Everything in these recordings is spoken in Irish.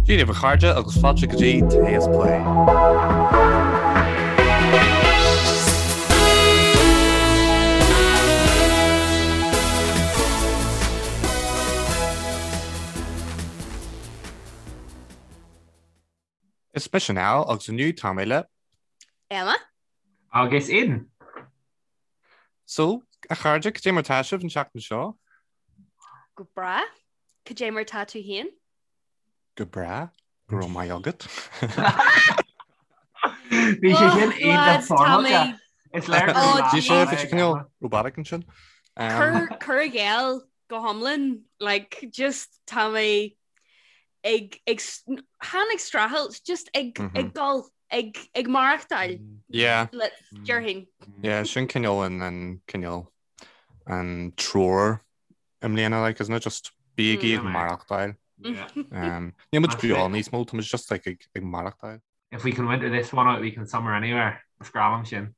Dia daoibh a chairde agus fáilte go dtí Tae is Plé. Is mise Niall agus inniu tá mé le. Emma. Agus Aidan. So, a chairde, cad é mar tá sibh an tseachtain seo? Go breá. Cad é mar tá tú féin? Go breá. Go raibh maith agat. Bhí sé sin iontach foirmeálta. Is léir go raibh Bhí sé bhí sé cineál robotic ansin. Cur i gcéill go hiomlán, like, just tá mé ag ag chan ag streachailt, just ag ag dul ag ag maireachtáil. Yeah. Le déarfainn. Yeah, sin cineál an an cineál an treoir i mbliana like isn't it just bígí ag maireachtáil. Um, Níl muid beo níos mó, tá muid just like ag ag maireachtáil. If we can winter this one out, we can summer anywhere. Is grá liom sin.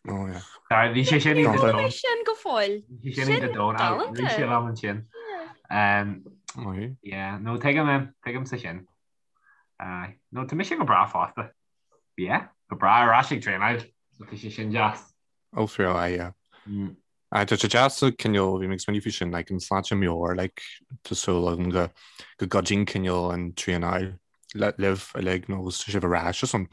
Oh yeah. Sorry, bhí sé sin iontach domhain. Sin go fóill. Bhí sé sin iontach domhain. Bhí sé liom ansin. Um, yeah, no tuigim em, tuigimse sin. Uh, no tá mise go breá fosta. Yeah, go breá ar ais ag traenáil. So tá sé sin deas. Oh, for real, yeah. Mm. Aye, tá sé deas cineál, bhí mé ag smaoineamh faoi sin, like, an sláinte meabhair, like, tá súil agam go, go gcuidíonn cineál an traenáil le, libh uilig nó agus tá sibh ar ais just an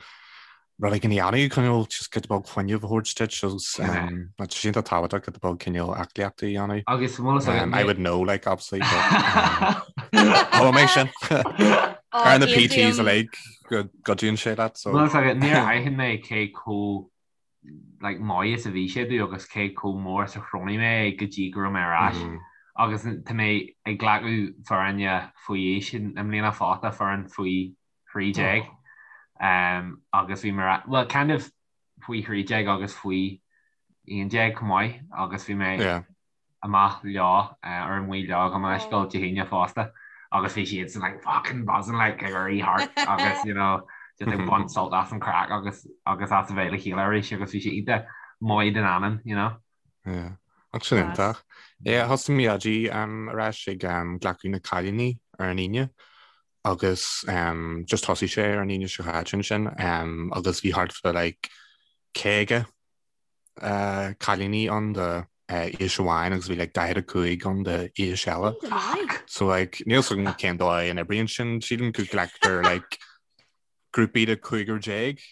rud éigin a dhéanamh, cineál just giota beag fuinneamh a thabhairt duit agus um, tá sé iontach tábhachtach giota beag cineál aclaíochta a dhéanamh. Agus bhfuil fhios agat Um, I would know, like, obviously, but, um, oh, mé sin. Ar na PTs uilig go gcuidíonn sé leat, so. Bhfuil fhios agat, níor aithin mé cé chomh like, maith is a bhí sé domh agus cé chomh mór is a chronaigh mé é go dtí go raibh mé ar ais. Mm. Agus tá mé ag glacadh foirne faoi aois i mbliana fosta, foireann faoi 13. Oh. Um, agus bhí mé well, kind of faoi 13 agus faoi 11 chomh maith agus bhí mé yeah. amach leo, ar amuigh leo gabh mo leithscéal Dé hAoine fosta agus bhí siadsan like fucking buzzing like ag éirí thart agus you know just ag baint sult as an craic agus agus as a bheith le chéile arís agus bhí sé iontach maith don anam you know. Yeah. Ach sin iontach. Yeah, thosaigh mé ag um, ar ais ag um, glacadh na cailíní ar an Aoine agus um, just thosaigh sé ar an Aoine seo caite ansin um, agus bhí thart fá like 50 cailíní ann de aois amháin agus bhí like 45 ann de aois eile. So like níl 's agam cén dóigh a n-oibríonn sin, sílim go nglactar like grúpaí de chúigear déag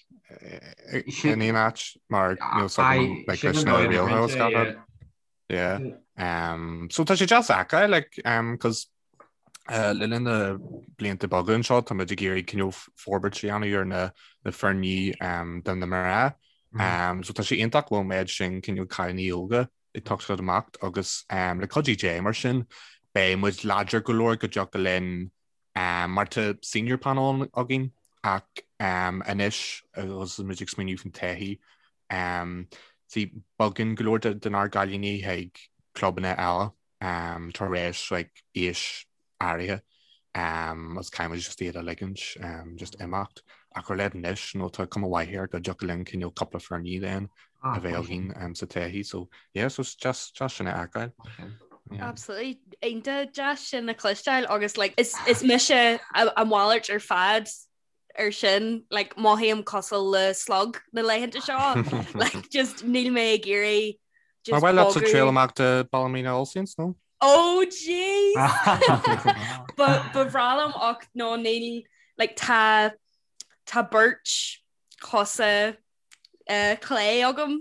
in aon áit mar níl 's agam like leis na rialacha is gach rud. Yeah. Um, so tá sé deas a fheiceáil like um, cos uh, le linn na blianta beaga anseo tá muid ag iarraidh cineál forbairt a dhéanamh ar na, na foirní um, do na mná. Mm. Um, so tá sé iontach go bhfuil an méid sin cineál cailíní óga ag teacht amach agus um, le cuidiú Dé mar sin beidh muid láidir go leor go dtiocfadh linn um, mar tá senior panel againn ach um, anois agus muid ag smaoineamh faoin todhchaí um, see, bogann go leor de, denár gcailíní chuig clubanna eile um, tar éis like, aois áirithe um, agus caithfidh muid just iad a ligint um, just imeacht. Ach ar leid anois nó tá cuma mhaith air go dtiocfadh linn cineál cúpla foirní then a bheith againn um, sa todhchaí. So yeah, so it's just, just sin a fheiceáil. Yeah. Absolutely. Iontach deas sin a chloisteáil agus like, is, is mise a, a mhalairt ar fad ar sin like, mothaím cosúil le slug na laethanta seo like, just níl mé ag iarraidh just Ar mhaith leatsa triail amach do Ballymena All Saints nó? Oh jeez! Ba ba bhreá liom ach no níl like tá tá beirt chosa uh, clé agam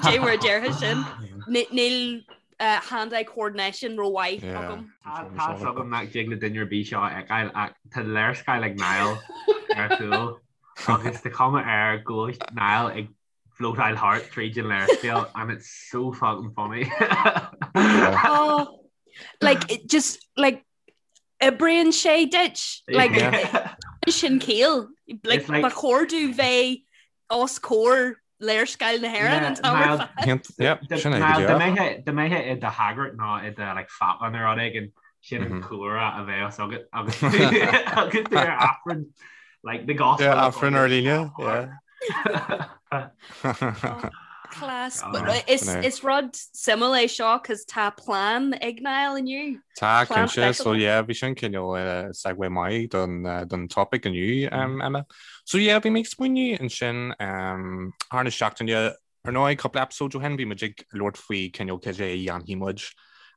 dé mar a déarfá sin níl uh, hand-eye coordination rómhaith agam. Tá fhios agam nach dtig le duine ar bith seo a fheiceáil ach tá léarscáil ag Niall ar chúl agus tá cuma air go bhfuil Niall ag floatáil thart tríd an léarscáil and it's so fucking funny. Oh, like it just like oibríonn sé duit like sin ciall like ba chóir domh bheith os comhair léarscáil na hÉireann an t-am ar fad. Dá mbeifeá i do shagart nó i do like phápa nó rud éigin sin an cúlra a bheadh agat agus agus tú ar Aifreann like the gospel. Yeah, Aifreann ar líne, yeah. Class. Is rud suimiúil é seo cos tá plean ag Niall inniu. Tá cinnte, so yeah, bhí sin cineál segue maith don don topic inniu Emma. So yeah, bhí mé ag smaoineamh ansin thar na seachtaine ar ndóigh cúpla episode ó shin bhí muid ag labhairt faoi cineál cad é a dhéanfaidh muid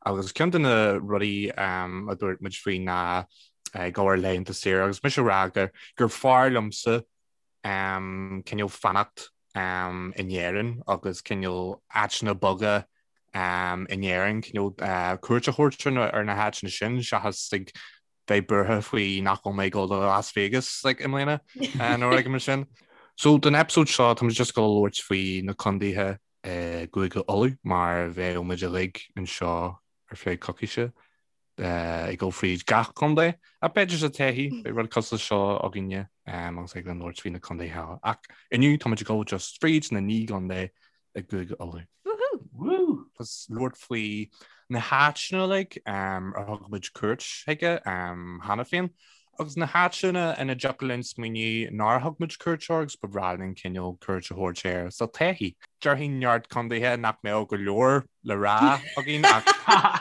agus ceann de na rudaí a dúirt muid faoi ná ag dul ar laethanta saoire agus mise ag rá gur gur fearr liomsa cineál fanacht in Éirinn agus cineál áiteanna beaga in Éirinn, cineál cuairt a thabhairt ar na háiteanna sin seachas ag bheith buartha faoi nach bhfuil mé ag dul do Las Vegas like, i mbliana nó rud mar sin. So don episode seo tá muid just ag dul a labhairt faoi na condaetha i gCúige Uladh mar bheadh muid uilig anseo ar feadh coicíse. ag dul fríd gach contae, ach b'fhéidir sa todhchaí, beidh rud cosúil leis seo againne agus ag labhairt faoi na contaetha eile. Ach inniu tá muid ag dul just fríd na naoi gcontae i gCúige Uladh. Woohoo! Agus labhairt faoi na háiteanna uilig ar thug muid cuairt chuige cheana féin, agus na háiteanna ina dtiocfadh linn smaoineamh nár thug muid cuairt air agus ba bhreá linn cineál cuairt a thabhairt air sa todhchaí. Déarfainn neart contaetha nach mbeadh go leor le rá againn ach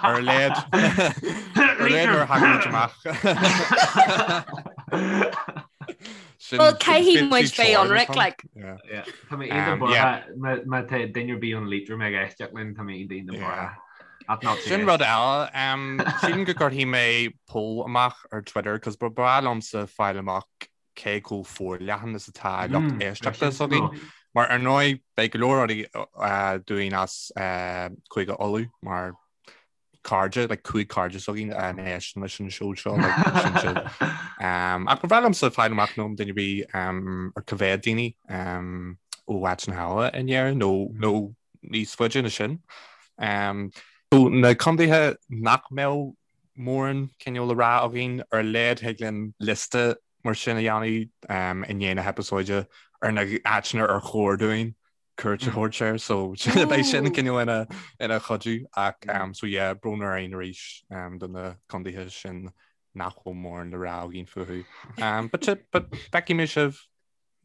ar a laghad ar a laghad nuair a thagann muid amach. Well, caithfidh muid bheith ionraic, like. Tá mé iontach buartha má tá duine ar bith ón Liatroim ag éisteacht linn, tá mé iontach buartha. Sin rud eile, sílim go gcuirfidh mé poll amach ar Twitter cos ba bhreá liomsa fáil amach cé chomh forleathan is atá lucht éisteachta s'againn. Mar ar ndóigh beidh go leor rudaí dúinn as Cúige Uladh mar cairde, like 5 cairde s'againn a n-éisteann leis an seó seo, like, sin siad. Ach ba bhreá liomsa fáil amach nó duine ar bith ar cá mhéad daoine ó áiteanna eile in Éirinn nó nó níos faide ná sin. So na contaetha nach mbeadh mórán cineál le rá againn, ar a laghad thig linn liosta mar sin a dhéanamh i ndiaidh na heipeasóide ar na háiteanna ar chóir dúinn cuairt a thabhairt air, so beidh sin cineál ina ina chuidiú ach so yeah, brón orainn arís do na contaetha sin nach bhfuil mórán le rá againn fúthu. But but feicfidh mé sibh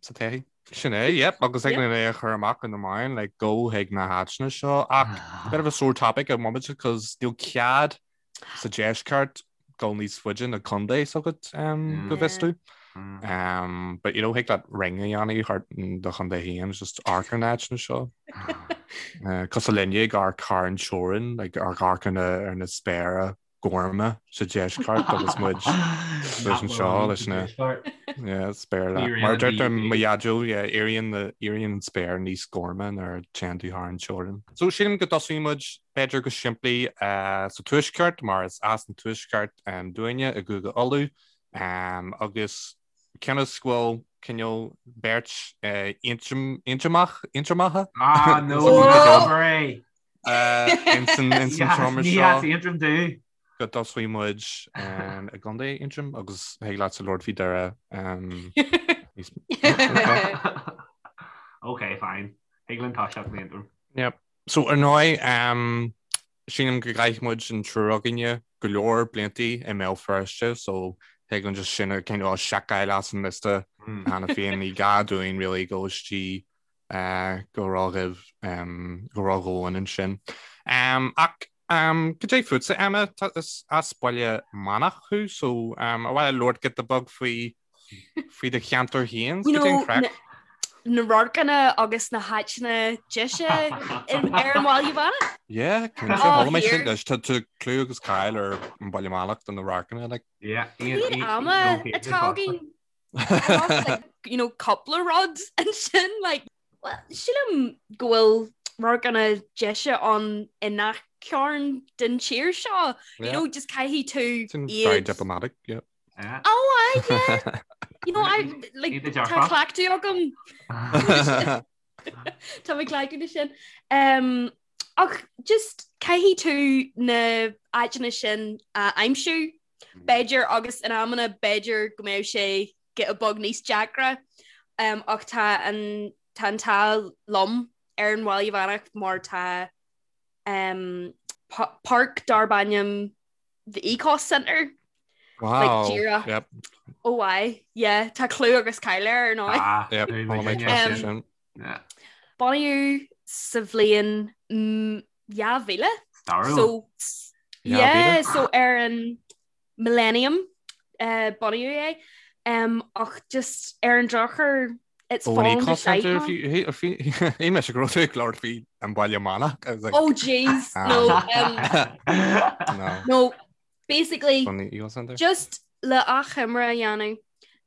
sa todhchaí. Sin é, yep, agus thig linn é a chur amach in na meáin, like, gabh chuig na háiteanna seo, ach bit of a sore topic an bomaite, cos níl cead sa deisceart dul níos faide ná contae s'agat um, go bhfios domh. Um, but you know, thig leat ring a dhéanamh thart do chontae féin, just amharc ar na háiteanna seo. Uh, cosúil linne ag amharc thar an teorainn, like, ag amharc ar na, ar na spéire gorma sa deisceart agus muid leis anseo leis na spéir Mar deirtear mo dhaideo éiríonn éiríonn an spéir níos gorma nuair a téann tú thar an teorainn. So sílim go dtosóidh muid b'fhéidir go simplí sa tuaisceart mar is as an tuaisceart dúinne i gCúige Uladh agus cionn is go bhfuil cineál beirt Aontromach Aontromacha Ah no! Insan seomra seo. Ní as Aontroim domh. Go dtosóidh muid i gContae Aontroim agus thig leatsa labhairt faoi Doire. Ok, fine. Thig linn toiseacht in Aontroim. Yep. So ar ndóigh, sílim go gcaith muid an triúr againne go leor bliantaí i mBéal Feirste, so thig linn just sin a cineál seiceáil as an liosta cheana féin. Ní gá dúinn really dul istigh go ródhomhain go ródhomhain ansin. Ach cad é fútsa, Emma? Is as Baile Meánach thú, so ar mhaith leat labhairt giota beag faoi faoi do cheantar féin? You know, na radharcanna agus na háiteanna deise ar an Bhaile Meánach? Yeah, cinnte. Chuala mé sin leis. Tá clú agus cáil ar an Bhaile Meánach do na radharcanna. Like. Yeah, Cad ama atá againn? like, you know, cúpla rud ansin like, well, sílim go bhfuil radharcanna deise ann i ngach cearn den tír seo. You know, just caithfidh tú Very diplomatic, yeah. Yeah. Oh, I, yeah. You know, I, like, tá cleachtadh agam. Tá mé cleachtaithe leis sin. Um, ach just caithfidh tú na áiteanna sin a aimsiú B'fhéidir, agus in amanna b'fhéidir go mbeadh sé giota beag níos deacra, ach tá an tá an t-ádh liom ar an Bhaile Mheánach mar tá páirc darb ainm The Ecos Centre. Wow. Like, díreach. Yep. Oh aye, yeah, tá clú agus cáil air ar ndóigh. Ah, yep. Bunaíodh sa bhliain 2000. Stairiúil. So, yeah, so ar an Millennium bunaíodh é ach just ar an drochuair it's fallen to shite now. Shíl mise go raibh tú ag labhairt faoi an Baile Meánach. Oh jeez, no. No, basically, just le achoimre a dhéanamh,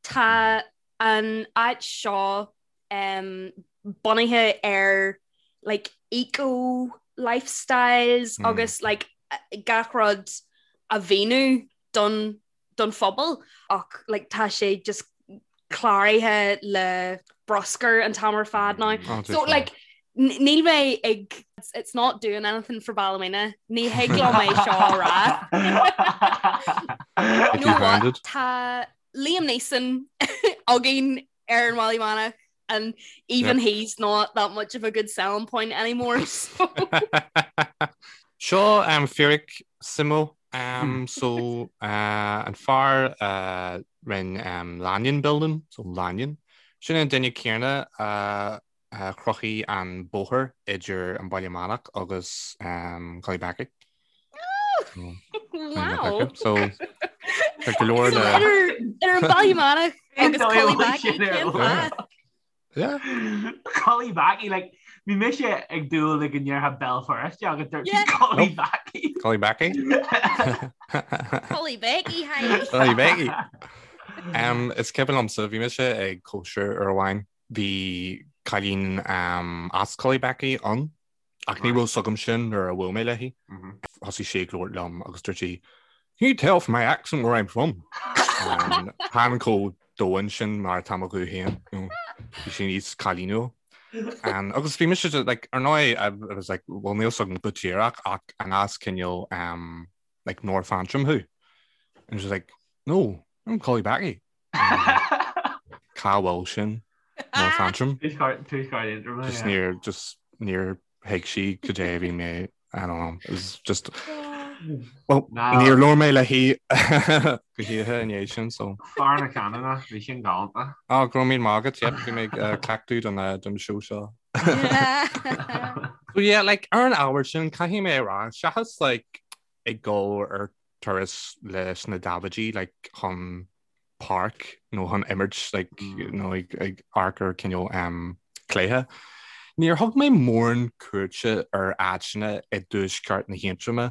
tá an áit seo bunaithe ar like eco lifestyles agus like gach rud a mhíniú don don phobal ach like tá sé just cláraithe le bruscar an t-am ar fad now. Oh, so like níl mé ag it's not doing anything for Ballymena. Ní thig liom é seo a rá. You know what? Tá Liam Neeson againn ar an Bhaile Meánach and even he's not that much of a good selling point anymore. So. Seo um, fíric suimiúil um, so uh, an fear uh, rinne um, Lanyon Building, so Lanyon. Sin an duine céanna uh, uh, chruthaigh an bóthar idir an Baile Meánach agus um, Cullybackey. Wow. So tá go leor le Idir an Baile Meánach agus Cullybackey cén fáth? Yeah. Cullybackey, like, bhí mise ag dúil le go ndéarfá Béal Feirste agus dúirt tú Cullybackey. Cullybackey. Cullybackey, hi. Cullybackey. Um, is cuimhin liomsa bhí mise ag cóisir uair amháin bhí cailín um, as Cullybackey ann Ach ní raibh 's agam sin nuair a bhuail mé léi. Thosaigh sí ag labhairt liom agus dúirt sí, Can you tell from my accent where I'm from? Chan chomh domhain sin mar atá mo ghuth féin. Bhí sí níos cailíniúil. Agus bhí mise like, ar ndóigh, I was like, well níl 's agam go díreach ach an as cineál um, like North Antrim thú? And she's like, no, I'm Cullybackey. Cá bhfuil sin? North Antrim? Just níor just níor thuig sí cad é a bhí mé I don't know it was just well níor labhair mé léi go hoíche i ndiaidh sin so. Fear na canúna bhí sin galánta. Á go raibh míle maith agat yep bhí mé ag cleachtadh don don show seo. So yeah like ar an ábhar sin caithfidh mé a rá seachas like ag dul ar turas leis na Davidaí like chun páirc nó chun imirt like nó ag ag amharc ar cineál um, cluiche. Níor thug mé mórán cuairte ar áiteanna i dtuaisceart na hAontroma.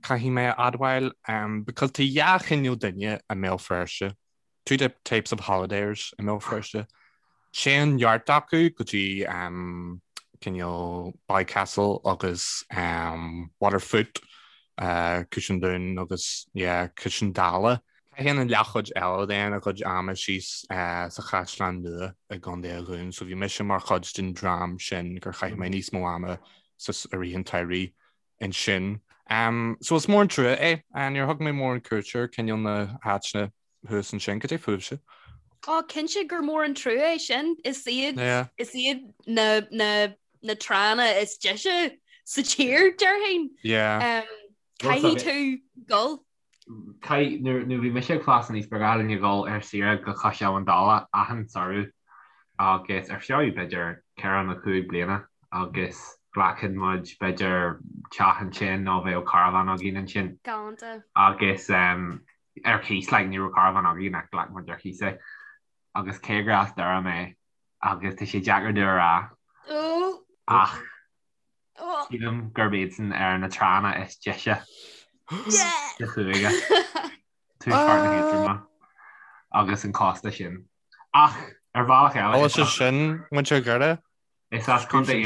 Caithfidh mé a admháil um, because tá dhá chineál duine i mBéal Feirste. Two types of holidayers i mBéal Feirste. Téann neart acu go dtí cineál Ballycastle agus Waterfoot, Cois an Dúin agus yeah Cois an Dála. Caitheann an leathchuid eile den a gcuid ama síos sa Chaisleán Nua i gContae an Dúin so bhí mise mar chuid den dream sin gur chaith mé níos mó ama sa i rith an tsamhraidh ansin. So is mór an trua é. Níor thug mé mórán cuairte ar cineál na háiteanna thuas ansin, cad é fúibhse? Ó, cinnte gur mór an trua é sin. Is iad is iad na na na tránna is deise sa tír, déarfainn. Yeah. Caithfidh tú dul. Caith, nuair nuair bhí mise ag fás aníos ba ghnách linn a dhul ar saoire go Cois Abhann Dalla achan samhradh agus ar feadh b'fhéidir ceithre nó cúig bliana agus ghlacfadh muid b'fhéidir teach ansin nó bheadh carbhán againn ansin. Galánta. Agus ar cíos, like, ní raibh carbhán againn ach ghlac muid ar cíos é. Agus cé gur as Doire mé, agus tá sé deacair domh a rá, ach sílim gurb iadsan ar na tránna is deise sa chúige, tuaisceart na hAontroma agus an cósta sin. Ach ar bhealach eile, Is sin muintir Dhoire? Is as Contae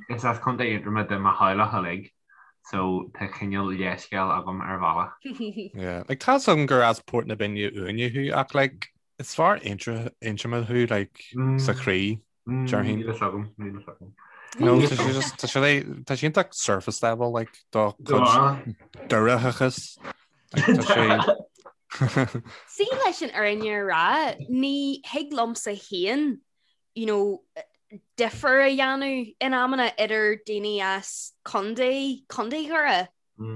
Is as Contae Aontroma do mo theaghlach uilig so tá cineál leithscéal agam ar bhealach. Yeah, like tá 's agam gur as Port na Binne Uaine thú ach like is fear Aontroma thú like sa chroí, déarfainn. Níl a fhios agam, níl a fhios agam. No, tá sé just tá sé tá sé iontach surface level like do chuid Doireachas. Like, tá sé See leis an fhírinne a rá, ní thig liomsa féin you know, difear a dhéanamh in amanna idir daoine as Contae, Contae Dhoire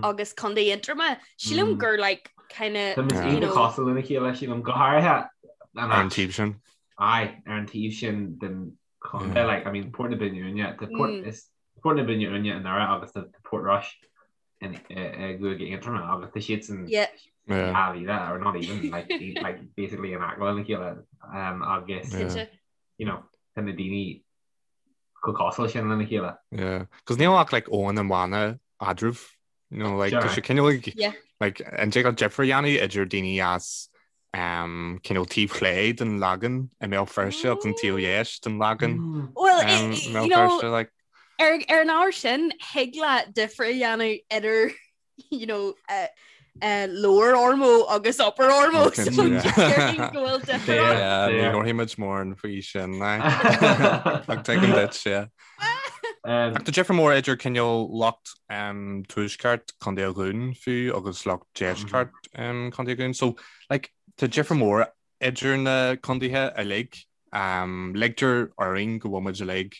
agus Contae Aontroma. Sílim gur like kind of, Tá muid you know. cosúil lena chéile, sílim, go háirithe ar an taobh sin. Aye, ar an taobh sin den. Chontae like I mean Port na Binne Uaine tá Port mm. is Port na Binne Uaine i nDoire agus tá Portrush in i gCúige Aontroma agus tá siad san mhíle or not even like like basically in aice lena chéile um, agus you know tá na daoine chomh cosúil sin lena chéile. Yeah, cos níl ach like abhainn an Bhanna eadraibh you know like tá sé cineál like like an dtig leat difear a dhéanamh idir daoine as um, cineál taobh chlé den Lagan i mBéal Feirste agus an taobh dheis den Lagan mm. Well um, i Mbéal Feirste like ar ar an ábhar sin thig leat difear a dhéanamh idir you know, uh, uh, Lower Ormeau agus Upper Ormeau so go bhfuil difear ann. Ní labharfaidh muid mórán faoi sin ach tuigim duit yeah. Ach tá difear mór idir cineál lucht tuaisceart Contae an Dúin fiú agus lucht deisceart Contae an Dúin. So like, tá difear mór idir na contaetha uilig. Ligtear orainn go bhfuil muid uilig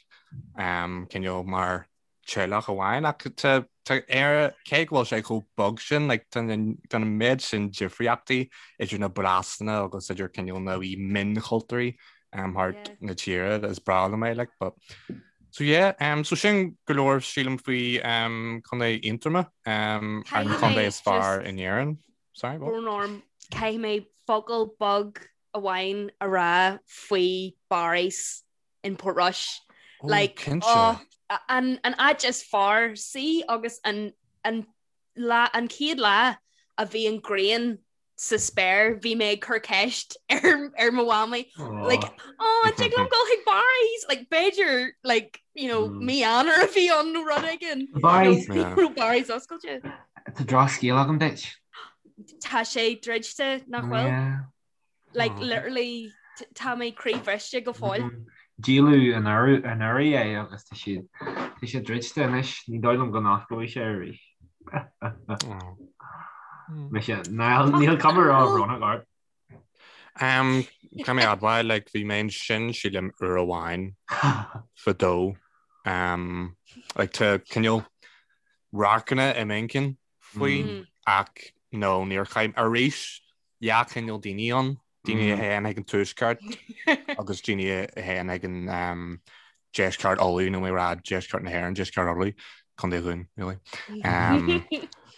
cineál mar teaghlach amháin ach tá Éire, cé go bhfuil sé chomh beag sin, like, tá an méid sin difríochtaí idir na blasanna agus idir cineál na wee mionchultúirí um, thart yeah. na tíre is breá liom é, like, but So yeah, um, so sin go leor sílim faoi um, Contae Aontroma um, an contae is fearr in Éirinn. Sorry, what? Brón orm, caithfidh mé focal beag amháin a rá faoi Barry's in Portrush. Oh, like, cinnte. Oh, an, an áit is fearr sí agus an, an, lá, an chéad lá a bhí an ghrian sa spéir bhí mé ag cur ceist ar, ar mo mhamaí oh. like oh an dtig liom dul chuig Barry's like b'fhéidir like you know mm. mí Eanáir a bhí ann nó rud éigin Barry's yeah. Barry's oscailte Tá drochscéal agam duit Tá sé druidte nach bhfuil yeah. Like literally tá mé croíbhriste go fóill. Díoladh anuraidh é agus tá sé tá sé druidte anois, ní dóigh liom go n-osclóidh sé arís. Mise, níl cuma róbhrónach ort. Caithfidh mé admháil, like, bhí mé ansin sílim uair amháin fadó. Like, tá cineál radharcanna i m'inchinn faoi ach no, níor chaith arís dhá chineál daoine ann, daoine a théann chuig an tuaisceart agus daoine a théann chuig an deisceart Uladh, nó mé rá deisceart na hÉireann, deisceart Uladh, Contae an Dúin, really. Um,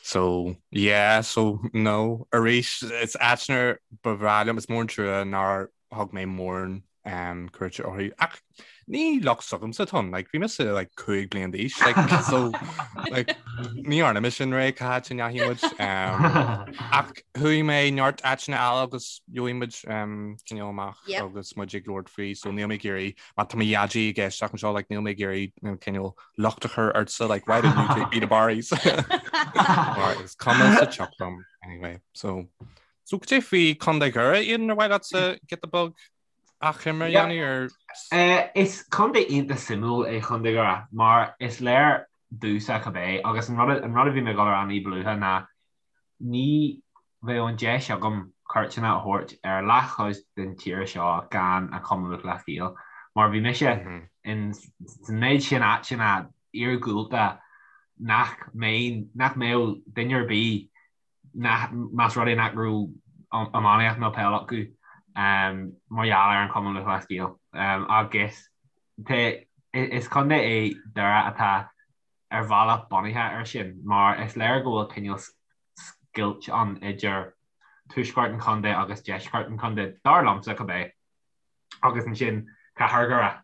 so, yeah, so, no, arís, is áiteanna ba bhreá liom, is mór an trua nár thug mé mórán um, cuairte orthu. Ach ní locht s'agamsa atá ann, like, bhí mise like, 5 bliain d'aois, like, so, like, ní dhearna mise an ré cá háit a ndeachaigh muid. Um, ach chuaigh mé neart áiteanna eile agus gheobhaidh muid um, cineál amach yep. agus muid ag labhairt faoi, so níl mé ag iarraidh, má tá mo dhaidí ag éisteacht anseo, like, níl mé ag iarraidh cineál locht a chur ortsa, like, why didn't you take me to Barry's? Mar is cuma sa tsioc liom, anyway, so So cad é faoi Contae Dhoire, Aidan, ar mhaith leatsa giota beag achoimre a dhéanamh ar? Is contae iontach suimiúil é Contae Dhoire mar is léir domhsa cibé agus an rud an rud a bhí mé ag dul a rá ní ba luaithe ná ní bheadh an deis agam cuairteanna a thabhairt ar leathchuid den tír seo gan an Cumann Lúthchleas Gael mar bhí mise in san méid sin áiteanna iargúlta nach mbeinn nach mbeadh duine ar bith más rud é nach raibh iománaíocht nó peil acu mar gheall ar an Chumann Lúthchleas Gael. Agus is contae é Doire atá ar bhealach bunaithe air sin mar is léir go bhfuil cineál scoilt ann idir tuaisceart an chontae agus deisceart an chontae, dar liomsa cibé. agus ansin Cathair Dhoire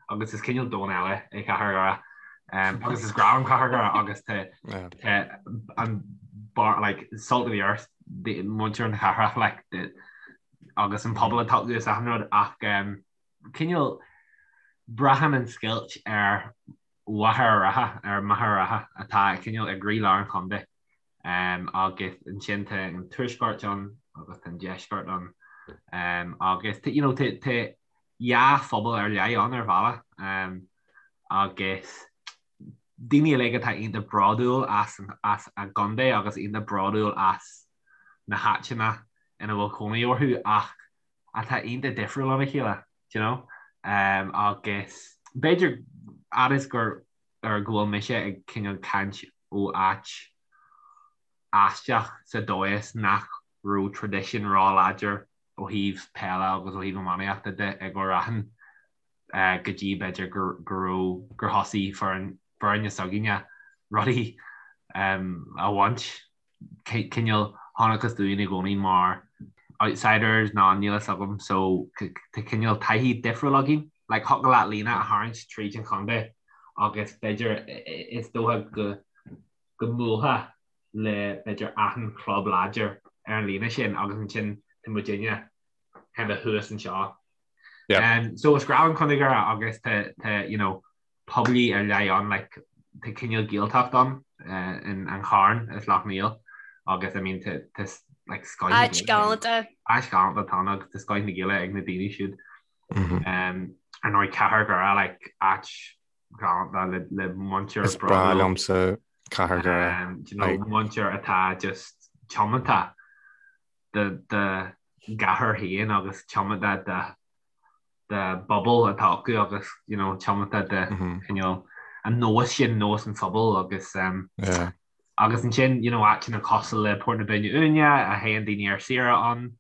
agus is cineál domhan eile é Cathair Dhoire agus is grá liom Cathair Dhoire agus tá an bar like salt of the earth muintir na cathrach like agus an pobal atá acu is achan rud ach cineál braitheann an scoilt ar Mhachaire Rátha ar Machaire Rátha atá cineál i gcroílár an chontae. Agus ansin tá an tuaisceart ann agus tá an deisceart ann agus you know tá dhá phobal ar leith ann ar bhealach agus daoine uilig atá iontach bródúil as as a gcontae agus iontach bródúil as na háiteanna ina bhfuil cónaí orthu ach atá iontach difriúil óna chéile, do you know? Agus b'fhéidir fhad is gur ar go bhfuil mise ag cineál caint ó áit aisteach sa dóigh is nach raibh traidisiún ró-láidir ó thaobh peile agus ó thaobh iománaíochta de i gCúil Raithin. go dtí b'fhéidir go raibh gur thosaigh foireann foirne s'againne rudaí a bhaint. Cineál chonacthas dúinn i gcónaí mar outsiders nó níl fhios agam so tá cineál taithí difriúil againn. Like thiocfadh leat líne a tharraingt tríd an chontae agus b'fhéidir is dócha go go mbuailfeá le b'fhéidir achan chlub láidir ar an líne sin agus ansin tá muidinne kind of thuas anseo. Yeah. Um, so is grá liom Contae Dhoire agus tá tá you know, pobail ar leith ann like, tá cineál Gaeltacht ann uh, in an Charn is Loch Néill agus I mean tá tá like scoth na Áit galánta. Áit galánta atá ann agus tá scoth na Gaeilge ag na daoine siúd. Mm -hmm. um, ar ndóigh Cathair Dhoire like áit galánta le le muintir Is breá liomsa Cathair Dhoire. Um, you know, like... muintir atá just tiomanta dá gcathair féin agus tiomanta dá bpobal atá acu agus you know tiomanta do cineál an nós sin, nós an phobail agus um, yeah. agus ansin you know áiteanna cosúil le Port na Binne Uaine a théann daoine ar saoire ann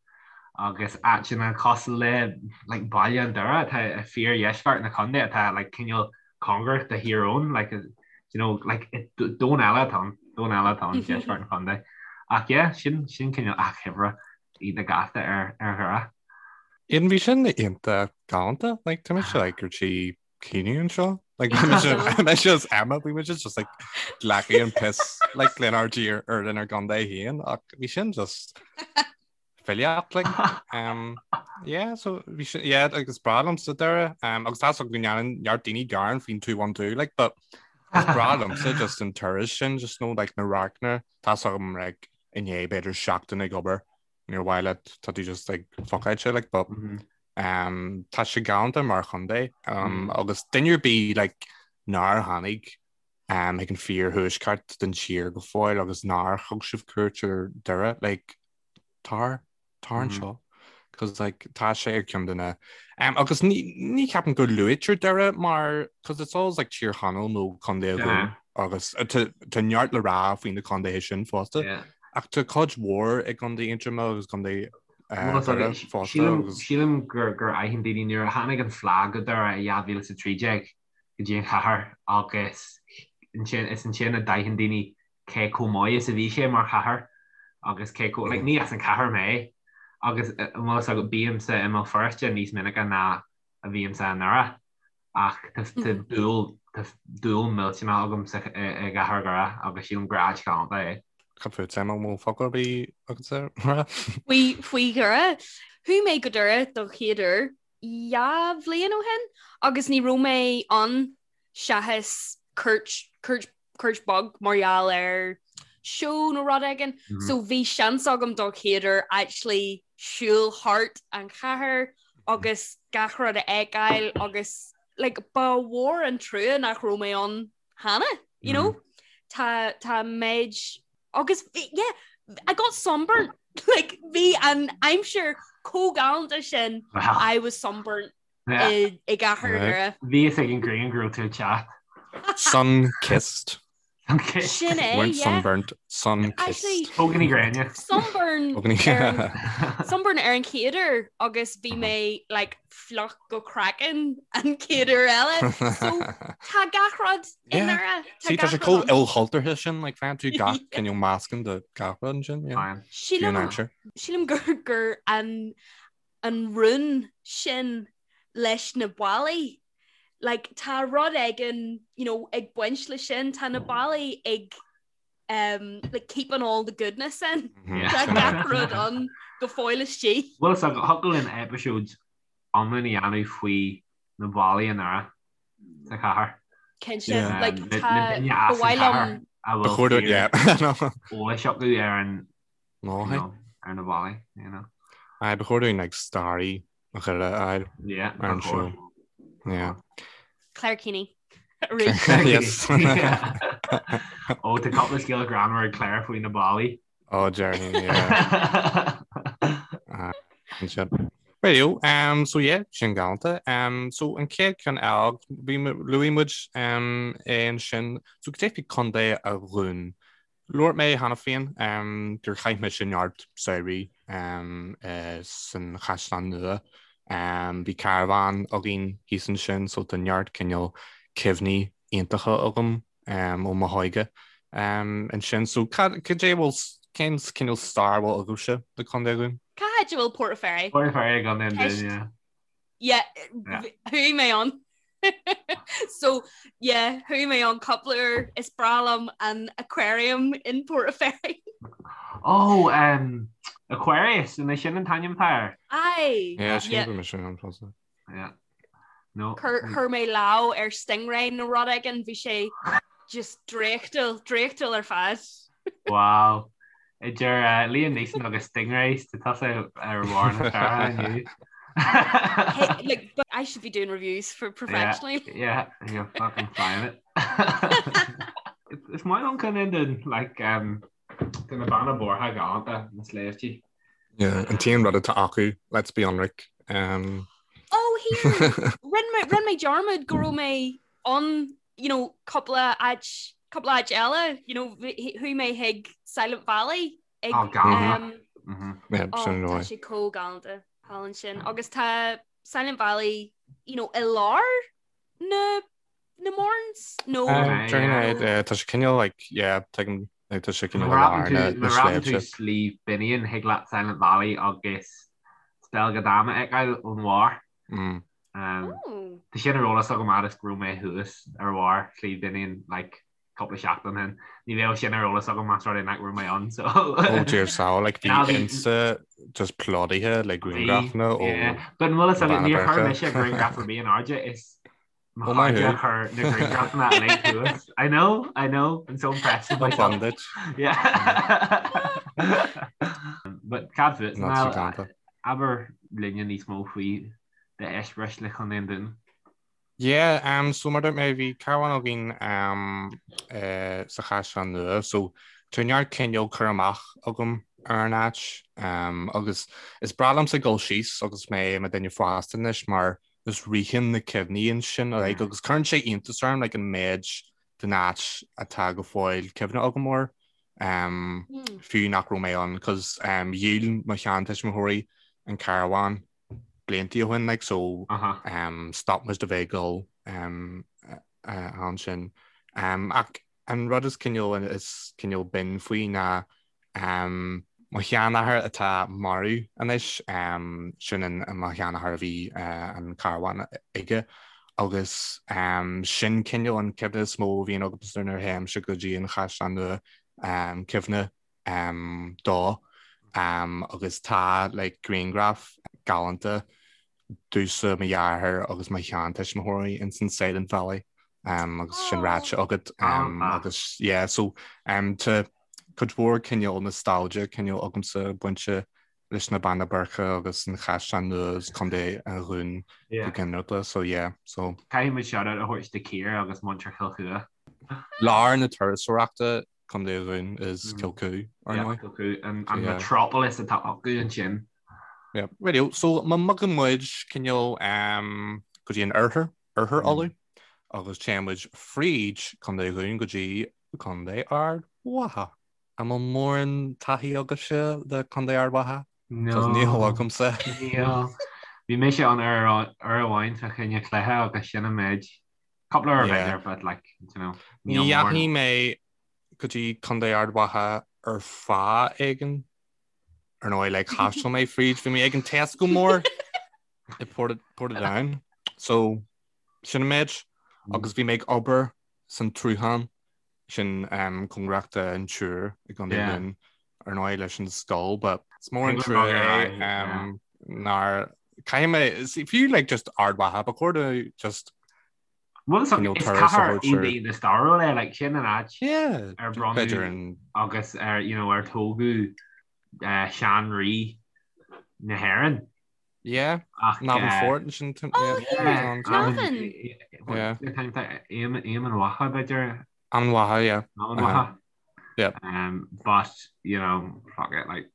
agus áiteanna cosúil le like Baile an Doire atá i fíordheisceart na contae atá like cineál cóngarach do Thír Eoghain like you know like domhan eile atá ann domhan eile atá ann deisceart an chontae ach yeah sin sin cineál achoimre iontach gasta ar ar Dhoire. Aidan bhí sin iontach galánta like tá mise like ar tí caoineadh anseo like bhí mise mise is Emma bhí muid just like glacadh an piss like lenár dtír ar lenár gcontae féin ach bhí sin just filíocht like um yeah so bhí sin yeah agus breá liomsa Doire um agus tá go ndéanann neart daoine gearán faoin 212 like but is breá liomsa just an turas sin just nó like na radharcanna tá agam like inné b'fhéidir seachtain ag obair níor mhaith leat tá tú just like fuckáilte like but mm -hmm. um tá sé galánta mar chontae um mm -hmm. agus duine ar bith like nár tháinig um ag an fíorthuaisceart den tír go fóill agus nár thug sibh cuairt ar Doire like tar tar anseo cos like tá sé ar ceann de na um, agus ní ní ceapaim go luaitear Doire mar cos it's always like Tír Chonaill nó Contae an Dúin agus uh, tá tá neart le rá faoi na contaetha sin fosta Yeah. ach tá cuid mhór i gContae Aontroma agus Contae uh, Well, Doire fosta Sílim agus sílim gur gur aithin daoine nuair a tháinig an phlá go Doire i 2013 go dtí an chathair agus ansin is ansin a d'aithin daoine cé chomh maith is a bhí sé mar chathair agus cé chomh, like, ní as an chathair mé agus an bhfuil fhios agat bímse i mBéal Feirste níos minice ná a bhímse i nDoire ach tá dúil tá dúil millteanach agam sa i gcathair Dhoire agus sílim gur áit ghalánta é. Cad fút Emma, an bhfuil focal ar bith agatsa le rá? Faoi faoi Dhoire, chuaigh mé go Doire don chéad uair 2 bhliain ó shin agus ní raibh mé ann seachas cuairt cuairt cuairt beag mar gheall ar seó nó rud éigin. Mm -hmm. So bhí seans agam don chéad uair actually siúl thart an chathair agus gach rud a fheiceáil agus like, ba mhór an trua nach raibh mé ann cheana, you know? Mm -hmm. Tá tá méid agus yeah, I got sunburnt like bhí an aimsir chomh galánta sin wow. I was sunburnt i gcathair Dhoire. Bhí fhios ag an ghrian go raibh tú ag teacht. Sun kissed. Sin é, Weren't sunburnt, sun kissed. Póigíní gréine. Sunburn Sunburn ar an chéad uair agus bhí mé like fliuch go craiceann an chéad uair eile. So tá gach rud i nDoire. See tá sé chomh ilchultúrtha sin like faigheann tú gach cineál meascán de gach rud ansin. Sílim sílim gur gur an an rún sin leis na ballaí. Like, tá rud éigin, you know, ag baint le sin, tá na ballaí ag um, like, keeping all the goodness in. Mm-hmm. Tá gach rud ann go fóill istigh. Bhuel, so thiocfadh linn eipeasóid iomlán a dhéanamh faoi na ballaí i nDoire sa chathair. Cinnte, yeah. like, tá ba mhaith liom a bhfuil eolais acu ar an No, you know, ar na ballaí, you know. Aye, ba chóir dúinn like staraí Dhoire a fháil Yeah, ar an show. Yeah. Claire Keaney. Yes. Ó tá cúpla scéal greannmhar ag Claire faoi na ballaí. Oh, Jerry, yeah. Sin. Radio, um, so yeah, sin galánta. Um, so an chéad ceann eile, bhí luaigh muid um, é ansin, so cad é faoi Contae an Dúin. Labhair mé cheana féin gur chaith mise neart samhraí san Chaisleán Nua. Bhí carbhán againn thíos ansin so tá neart cineál cuimhní iontacha agam ó mo hóige ansin. So cad é bhfuil, cén cineál stair a bhfuil agaibhse le Contae an Dúin? Cá háit a bhfuil Port a' Ferry? Port a' Ferry i gContae an Dúin, yeah. Yeah, chuaigh mé ann. So, yeah, chuaigh mé ann cúpla uair. Is breá liom an aquarium in Port a' Ferry. Oh, um, Aquarius, an é sin an t-ainm atá air? Aye. Yeah, sin yeah. sin an fosta. Yeah. No. Chuir mé lámh ar stingray nó rud éigin, bhí sé just draíochtúil, draíochtúil ar fad. Wow. Idir uh, Liam Neeson agus Stingrays, tá tusa ar bharr na staire inniu. Hey, like, but I should be doing reviews for professionally. Yeah, yeah, you're fucking flying it. Is maith liom Contae an Dúin, like, um, tá na Beanna Boirche galánta na sléibhtí. Yeah, an t-aon rud atá acu, let's be ionraic. Um... Oh, here! Rinne mé, rinne mé dearmad go raibh mé ann you know, cúpla áit, cúpla áit eile, you know, chuaigh mé chuig Silent Valley ag, Oh, galánta. um, Mhm. Yeah, oh, sin tá roi. sé chomh galánta thall ansin. Agus tá Silent Valley, you know, i lár na, na Mournes, nó Um, During yeah. uh, tá sé cineál like, yeah, tuigim, like, tá sé cineál Má i lár dhreapann na, tú na má dhreapann tú sléibhte. Sliabh Binnian thig leat Silent Valley agus Spelga Dam a fheiceáil ón bharr. Mm. Tá sin ar eolas agam fhad is go raibh mé thuas ar bharr Shliabh Binnian like cúpla seachtain ó shin. Ní bheadh sin ar eolas agam más rud é nach raibh mé ann so. Oh dear soul, like bhí Insta just plódaithe le grianghrafanna ó But an bhfuil fhios agat níor chuir mise grianghraf ar bith in airde is mo chairde a chuir na grianghrafanna uilig thuas. I know, I know, I'm so impressed with myself. Fun duit. Yeah. But cad fút? Not so galánta. Abair linne níos mó faoi d'eispéireas le Contae an Dúin. Yeah, um, so mar dúirt mé bhí carbhán againn um, eh, sa Chaisleán Nua, so tá neart cineál cur amach agam ar an áit um, agus is breá liomsa dul síos agus mé i mo duine fásta anois mar is ritheann na cuimhní ansin like, agus cuireann sé iontas orm like, an méid den áit atá go fóill cuimhne agam air um, mm. fiú nach raibh mé ann, cos um, dhíol mo sheantuismitheoirí an carbhán blianta ó shin like, so uh -huh. um, stop muid de bheith ag dul um, uh, ansin. Um, ach an rud is cineál is cineál binn faoi ná um, mo sheanathair atá marbh anois, um, sin an, mo sheanathair a bhí uh, an carbhán aige agus um, sin cineál an cuimhne is mó a bhíonn agamsa nuair a théimse go dtí an Chaisleán Nua um, cuimhne um, dó um, agus tá like, grianghraf galánta domhsa mo dheartháir agus mo sheantuismitheoirí ins an Silent Valley um, agus sin ráite agat um, agus yeah, so um, tá cuid mhór cineál nostalgia cineál agamsa bainte leis na Beanna Boirche agus an Chaisleán Nua agus Contae an Dhúin go ginearálta so yeah so. Caithfidh muid shout-out a thabhairt do Ciara agus muintir Chill Chua. Lár na turasóireachta Contae an Dhúin is Cill Chua, ar ndóigh. Cill Chua, an metropolis atá acu ansin. Yeah, radio. So má bhogann muid cineál go dtí an oirthear, oirthear Uladh, agus téann muid fríd Contae an Dhúin go dtí Contae Ard Mhacha. An bhfuil mórán taithí agaibhse le Contae Ard Mhacha? No. Níl agamsa. Níl. Bhí mise ann uair amháin fá choinne cluiche agus sin an méid. Cúpla uair b'fhéidir, but like, you know, Ní dheachaigh mé go dtí Contae Ard Mhacha ar fáth éigin. Ar ndóigh, like, thaistil mé fríd, bhí mé ag an Tesco mór i Portadown. So, sin an méid. Agus bhí mé ag obair san tSruthán, sin um, cóngarach don Iúr i gContae an Dúin, ar ndóigh leis an scoil, but is mór an trua é um, nár caithfidh mé, fiú like just Ard Mhacha, ba chóir do just Bhuel is cathair iontach stairiúil é like sin an áit ar bronnadh agus ar you know ar tógadh uh, sean-rí na hÉireann. Yeah, Navan Fort sin. Oh, yeah, Navan. Yeah. Éamann Mhacha b'fhéidir. Emain Macha, yeah. Emain Macha. Yeah. Um, but, you know, fuck it, like.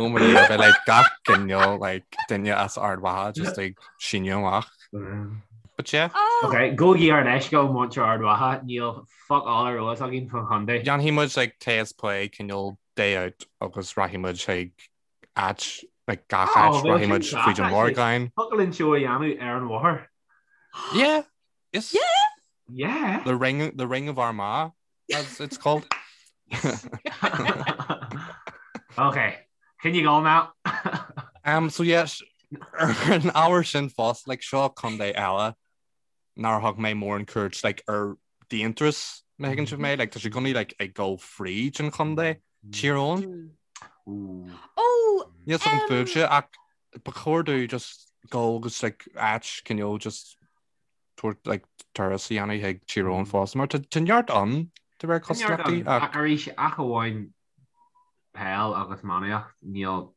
Oh my God, bheith like gach cineál like duine as Ard Mhacha just like síneadh amach. But yeah. Oh. Okay, gabhaigí ár leithscéal muintir Ard Mhacha, níl fuck all ar eolas againn faoin chontae. Déanfaidh muid like taste play cineál day out agus rachaidh muid chuig áit like gach áit rachaidh muid fríd an Mhorgáin. Thiocfadh linn seó a dhéanamh ar an bhóthar. Yeah. Yes. Yeah. Yeah. The ring the ring of Armagh as it's called. Okay. Can you go now? Um so yes ar an ábhar sin fosta like seo contae eile nár thug mé mórán cuairt like ar d'aonturas má thuigeann sibh mé like tá sé i gcónaí like ag dul fríd an chontae Tír Eoghain. Ó! Níl 's agam fúibhse ach ba chóir dúinn just dul agus like áit cineál just tabhairt like turas a dhéanamh chuig Tír Eoghain fosta mar tá tá neart ann de réir cosúlachtaí ach arís ach amháin peil agus iománaíocht níl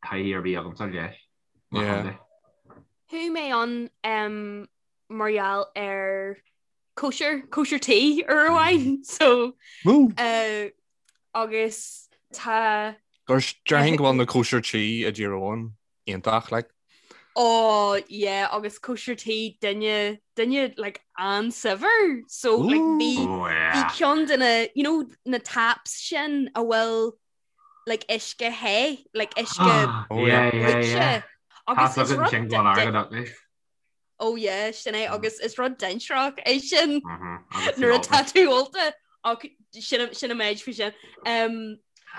taithí ar bith agamsa leis. Yeah. Chuaigh mé ann mar gheall ar cóisir, cóisir tí uair amháin so uh, agus tá Gur déarfainn go bhfuil na cóisir tí i dTír Eoghain iontach like. Oh yeah agus cóisir tí duine duine like an-saibhir so like bhí Oh yeah. bhí ceann de na you know na taps sin a bhfuil like uisce the like uisce Oh, yeah. Yeah, yeah, yeah. bruite agus Tá is rud sin go airgead acu. Oh yeah, sin é agus is rud dainséarach é sin Mhm, agus nuair tú atá tú ólta ach sin sin an méid faoi sin. Um,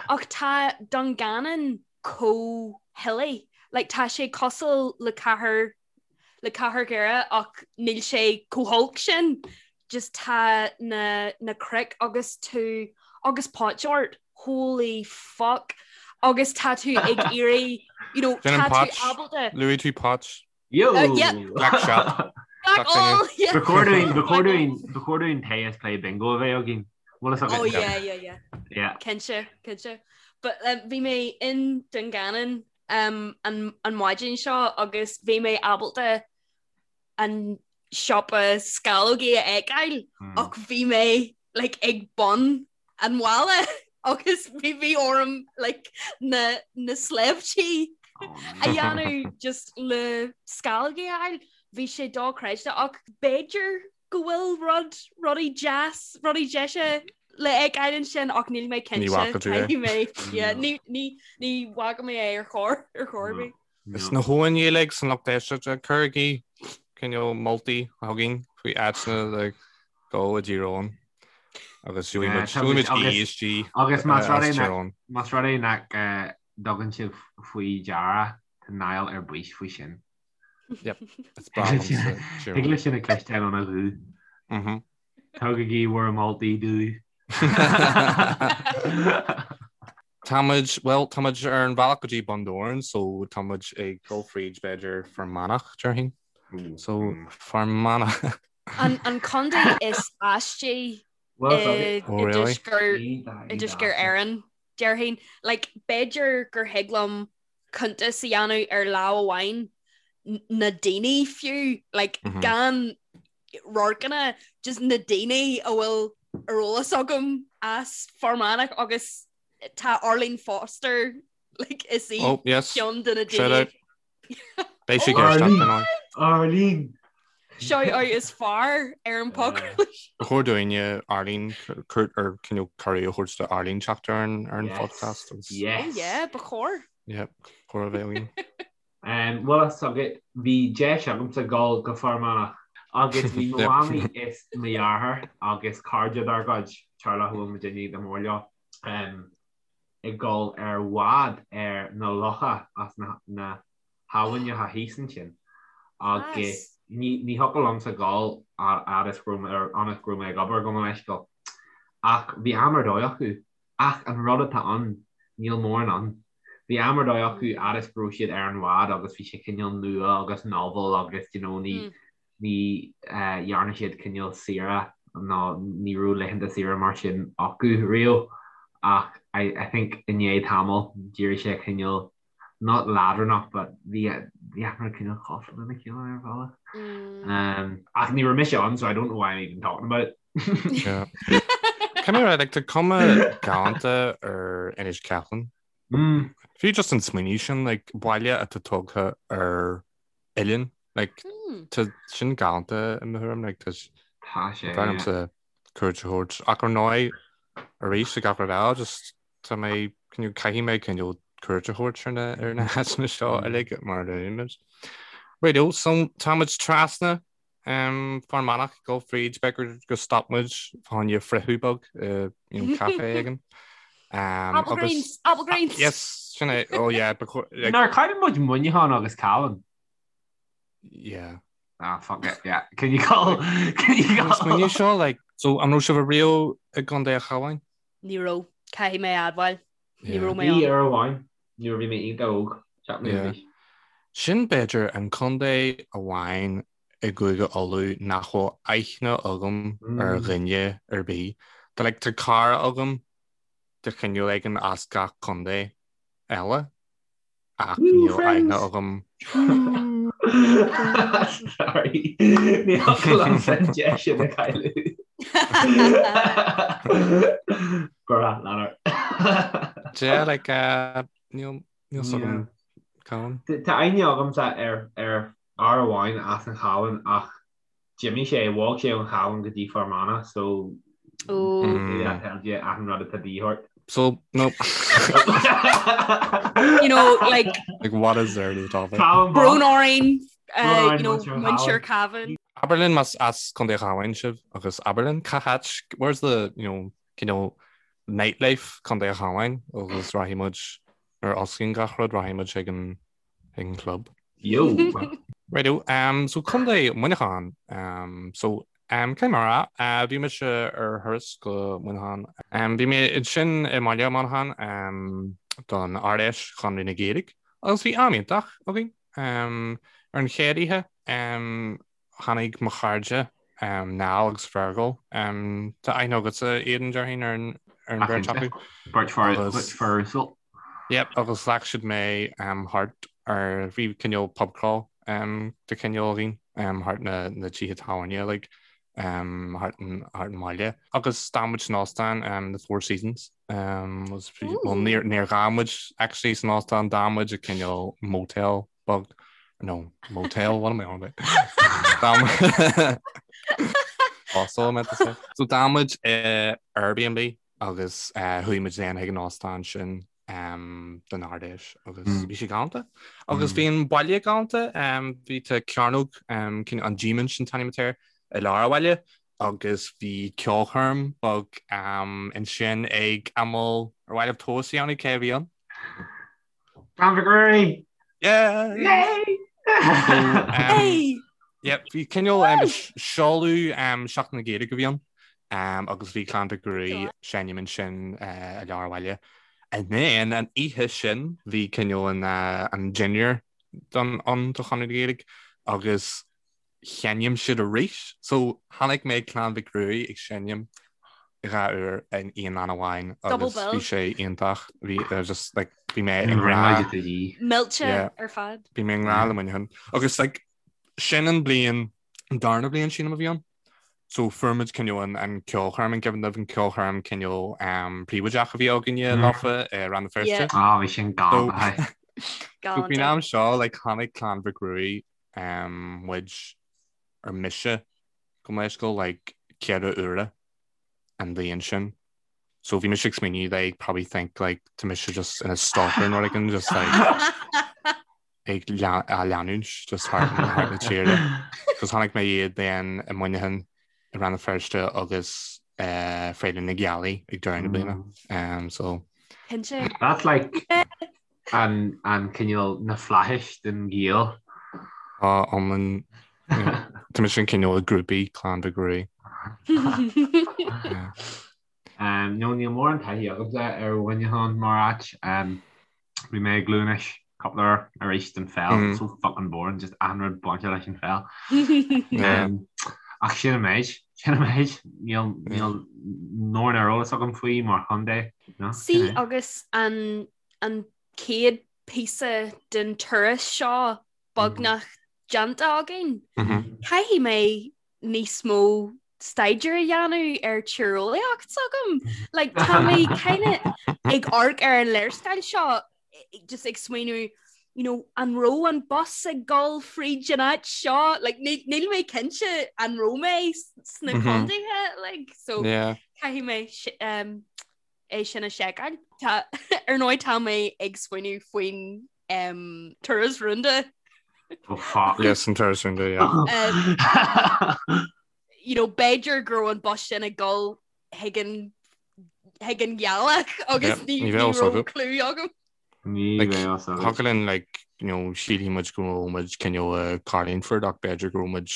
ach tá Dungannon chomh hilly. Like tá sé cosúil le cathair le cathair Dhoire ach níl sé chomh holc sin. Just tá na na cnoic agus tú agus potch ort. Holy fuck. Agus tá tú ag iarraidh, you know, Sin an tá tú potch. ábalta Luaigh tú potch. Yo! Uh, yeah. Black shop. Black all, yeah. Ba chóir dúinn, ba chóir dúinn, ba chóir dúinn tae is plé bingo a bheith againn. Bhfuil a fhios agat? Oh yeah, yeah, yeah. Yeah. Cinnte, cinnte. But um, bhí mé in Dungannon um, an, an maidin seo agus bhí mé ábalta an siopa sceallógaí a fheiceáil Mm. ach bhí mé like, ag bun an bhaile agus bhí bhí orm like, na, na sléibhtí a dhéanamh just le sceallógaí a fháil. Bhí sé dochreidte ach b'fhéidir go bhfuil rud rudaí deas, rudaí deise le fheiceáil ansin ach níl mé Ní cinnte bhfaca tú é. caithfidh mé yeah, ní, ní, ní bhfaca mé é ar chor ar chor ar bith. Is na hamháin uilig san lucht éisteachta, cuirigí cineál moltaí chugainn faoi áiteanna le dul i dTír Eoghain agus gheobhaidh muid gheobhaidh muid ESG Agus más rud as é Tír nach Eoghain. más rud é nach dtugann sibh faoi deara tá Niall ar bís faoi sin. Yep, is breá liomsa Tír Thig Eoghain. leis sin a chloisteáil óna ghuth. Mhm. Tugaigí bhur moltaí dúinn. Táimid, bhuel, táimid ar an bhealach go dtí Bun Dobhráin so táimid ag dul fríd b'fhéidir Fear Manach, déarfainn. So Fear Manach. An, an contae is aistí Well, i, Oh, i really? dtuaisceart i dtuaisceart Éireann, déarfainn. Like, b'fhéidir gur thig liom cuntas a dhéanamh ar lámh amháin na daoine fiú, like, mm -hmm. gan radharcanna, just na daoine a bhfuil ar eolas agam as Fear Manach agus tá Arlene Foster like, is í oh, yes. ceann de na daoine. Beidh sí ag Arlene! Shout out is fearr ar an podchraoladh. Ba chóir dúinne Arlene ar cineál cuireadh a thabhairt do Arlene teacht ar an ar an podcast. Yes. Oh yeah, ba chóir. Yeah, chóir a bheith againn. Bhfuil a fhios agat, bhí deis agamsa dul go Fear Manach agus bhí mo mhamaí is mo dheartháir agus cairde dár gcuid, teaghlach a bhfuil muidinne go mór leo, ag dul ar bhád ar na locha as na habhainneacha thíos ansin agus ní thiocfadh liomsa dul fhad is go raibh mé ag obair gabh mo leithscéal. Ach bhí am ar dóigh acu. Ach an rud atá ann, níl mórán ann. Bhí am ar dóigh acu fhad is go raibh siad ar an bhád agus bhí sé cineál nua agus novel agus you know ní ní dhearna siad cineál saoire nó ní raibh laethanta saoire mar sin acu riamh ach I I think i ndiaidh tamaill d'éirigh sé cineál not leadránach but bhí bhí achan rud cineál cosúil lena chéile ar bhealach. Um, ach ní raibh mise ann so I don't know why I'm even talking about it. Yeah. Come here, like tá cuma galánta ar Inis Ceithleann. Mm. Fiú just an smaoineamh sin like baile atá tógtha ar oileán like Mm. tá sin galánta i mo thuairim like tá Tá sé, yeah. B'fhearr cuairt a thabhairt ach ar ndóigh arís ag gach rud eile just tá mé cineál caithfidh mé cineál. cuairt a thabhairt ar na ar na háiteanna seo uilig mar a luaigh muid. Righto, so tá muid trasna um, Fear Manach ag dul fríd b'fhéidir go stop muid fá choinne friochadh beag uh, you know, caife éigin. Um, Applegrains, Applegrains. Yes, sin é. Oh yeah, ba chóir- like, Nár chaill muid Muineachán agus Cabhán? yeah. Ah, fuck it, yeah. Can you call? Can you call? Smaoineamh seo, like, so an raibh sibh ariamh i gContae an Chabháin? Ní raibh, caithfidh mé a admháil. Ní raibh mé Bhí ann. uair amháin nuair a bhí mé iontach óg, 7 mbliana d'aois. Sin b'fhéidir an contae amháin i gCúige Uladh nach bhfuil aithne agam ar dhuine ar bith. Tá like tá cara agam de chineál éigin as gach contae eile. Ach níl aithne agam. Sorry. Ní thiocfadh liomsa an deis sin a chailleadh. Gura, lean ort. Yeah, like, uh, níl níl 's agam Cabhán. Tá aithne agamsa ar ar fhear amháin as an Chabhán ach D'imigh sé, bhog sé ón Chabhán go dtí Fear Manach so that tells you achan rud atá de dhíth ort. So, no. You know, like... Like, what is there to the topic? Brón orainn, uh, you know, muintir Cabhán. Abair linn más as Contae an Chabháin sibh agus abair linn cá háit, where's the, you know, cineál nightlife Contae an Chabháin agus rachaidh muid nuair a osclaíonn gach rud, rachaidh muid ag an ag an club. Yo! Righto, um, so Contae Muineachán. Um, so, um, cé mar a, uh, bhí mise ar thuras go Muineachán. Um, bhí mé ansin i mbaile Muineachán um, don Ard-Fheis Chonradh na Gaeilge agus bhí am iontach againn. Um, ar an chéad oíche, um, Tháinig mo chairde, Niall agus Fergal, tá aithne agatsa, Aidan, déarfainn, ar an bheirt acu. Beirt fear uasal. Yep, agus ghlac siad mé thart ar, bhí cineál pub crawl de chineál againn, thart na na tithe tábhairne like, thart an mbaile. Agus d'fhan muid san óstán, the Four Seasons. Well, níor d'fhan muid actually san óstán, d'fhan muid i cineál motel beag no motel what am I on about? Hostel I meant to say. So d'fhan muid i Airbnb agus uh, chuaigh muid then chuig an óstán sin um, don Ard-Fheis agus mm. bhí sé galánta. Agus mm. bhí an baile galánta um, bhí tá cearnóg um, an Díomaint an t-ainm atá air i lár an bhaile agus bhí ceolchoirm beag um, ansin ag amal ar mhaith libh tomhas a dhéanamh cé a bhí ann. Clann Mhic Ruairí! Yeah! Yay! Um, yeah, bhí cineál um, seoladh um, Seachtain na Gaeilge a bhí ann um, agus bhí Clann Mhic Ruairí ag seinm ansin uh, i lár an bhaile. And then an oíche sin bhí cineál an, uh, an dinnéar don ann do Chonradh na Gaeilge agus sheinm siad arís. So chonaic mé Clann Mhic Ruairí ag seinm 2 uair in aon am amháin agus bhí sé iontach. Bhí uh, just like bhí mé i ngrá. Millte ar fad. Bhí mé i ngrá le Muineachán. Agus like sin an bliain an darna bliain sílim a bhí ann. So fuair muid cineál an, an ceolchoirm an cuimhin libh an ceolchoirm cineál um, príobháideach a bhí againne mm. leofa i Rann na Feirste. Yeah. Ah, bhí sin galánta. So faoin am seo like chonaic Clann Mhic Ruairí um, muid ar mise gabh mo leithscéal like 4 uaire an bhliain sin. So bhí mise ag smaoineamh they probably think like tá mise just ina stalker nó rud éigin just like ag á leanúint just thart thart na tíre. Cos chonaic mé iad then i Muineachán i Rann na Feirste agus uh, Féile na Gealaí ag deireadh na bliana. Um, so Cinnte. That's like An cineál na flaithis den Ghael. Tá iomlán Tá mise an cineál groupie Clann Mhic Ruairí. No níl mórán taithí agamsa ar Mhuineachán mar áit. Bhí mé i gCluain Eois cúpla uair arís don pheil, so fucking boring, just achan rud bainte leis an pheil. Ach sin an méid, sin an méid, níl mórán ar eolas agam faoi mar chontae. Sea agus an an chéad píosa den turas seo beagnach déanta againn. Caithfidh mé níos mó staidéar a dhéanamh ar tíreolaíocht s'agam. Like, tá mé kind of ag amharc ar an léarscáil seo just ag smaoineamh you know, an raibh an bus ag dul fríd an áit seo? Like, níl mé cinnte an raibh mé sna contaetha, like, so yeah. caithfidh mé um, é sin a sheiceáil. Tá ar ndóigh tá mé ag smaoineamh faoin um, turas rúnda. Oh fuck. Yes, an turas rúnda, yeah. Um, you know, b'fhéidir go raibh an bus sin ag dul chuig an chuig an ghealach agus Yep, ní ní ní bheadh fhios raibh agat. clue agam. Ní Like, bheadh fhios agat. Thiocfadh linn, like, you know, sílfidh muid go raibh muid cineál i Carlingford ach b'fhéidir go raibh muid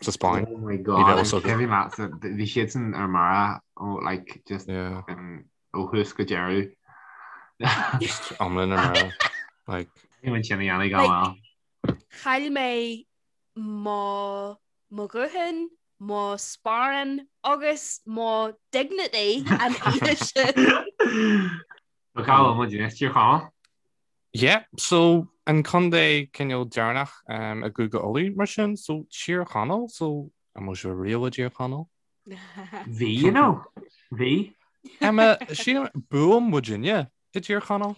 sa Spáinn. Oh my Ní god, bheadh an fhios agat. cuimhin leatsa, bhí siadsan ar mire ó like just Yeah. um, ó thús go deireadh. Just iomlán ar mire. Like, Bhí muid sin a dhéanamh Like, gan mhoill. Chaill mé mo mo ghuthán, mo sparán agus mo dignity an oíche sin. So cá bhfuil muid anois, Tír Chonaill? Yeah, so an contae cineál deireanach um, i gCúige Uladh mar sin, so Tír Chonaill, so an bhfuil sibh riamh i dTír Chonaill? Bhí, you know. Bhí. Emma, sílim bhuail muidinne i dTír Chonaill.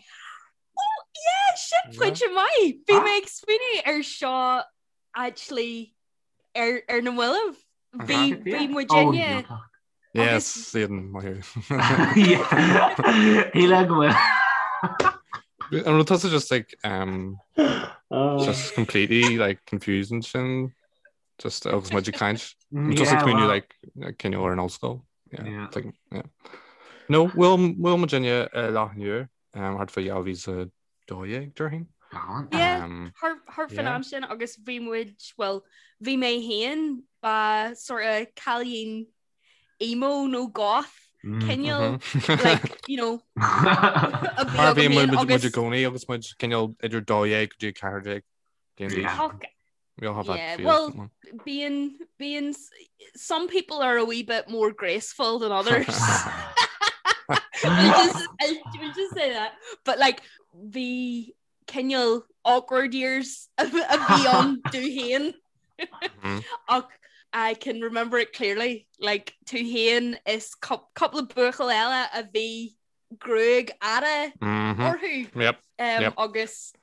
Oh, yeah, sin Yeah. pointe maith. Bhí mé ag smaoineamh ar seo actually ar, ar na mallaibh. Bhí, bhí muidinne Yes, Aidan, maith thú. Shíl go bhfuil. An raibh tusa just like um, just completely like confused ansin just agus muid ag caint. Just ag smaoineamh like cineál ar an ollscoil. Yeah. Yeah. Like, yeah. No, bhuail bhuail muidinne i Loch an Iúir um, thart fá 2012 déarfainn. Gallant. Yeah. Um, Thart thart fán Yeah. am sin agus bhí muid, well, bhí mé féin ba sort of cailín emo nó goth cineál like, you know, a bhí Mar agam bhí féin muid muid agus i gcónaí agus muid cineál idir 12 go dtí 14 bliain d'aois. Yeah. Fuck, We all have that yeah, phase, well, don't we? being being some people are a wee bit more graceful than others. we'll just, I'll, we'll just say that. But like bhí cineál awkward years a bhí ann domh féin ach I can remember it clearly. Like tú féin is cúpla buachaill eile a bhí gruaig fhada orthu. Yep, Um, yep. agus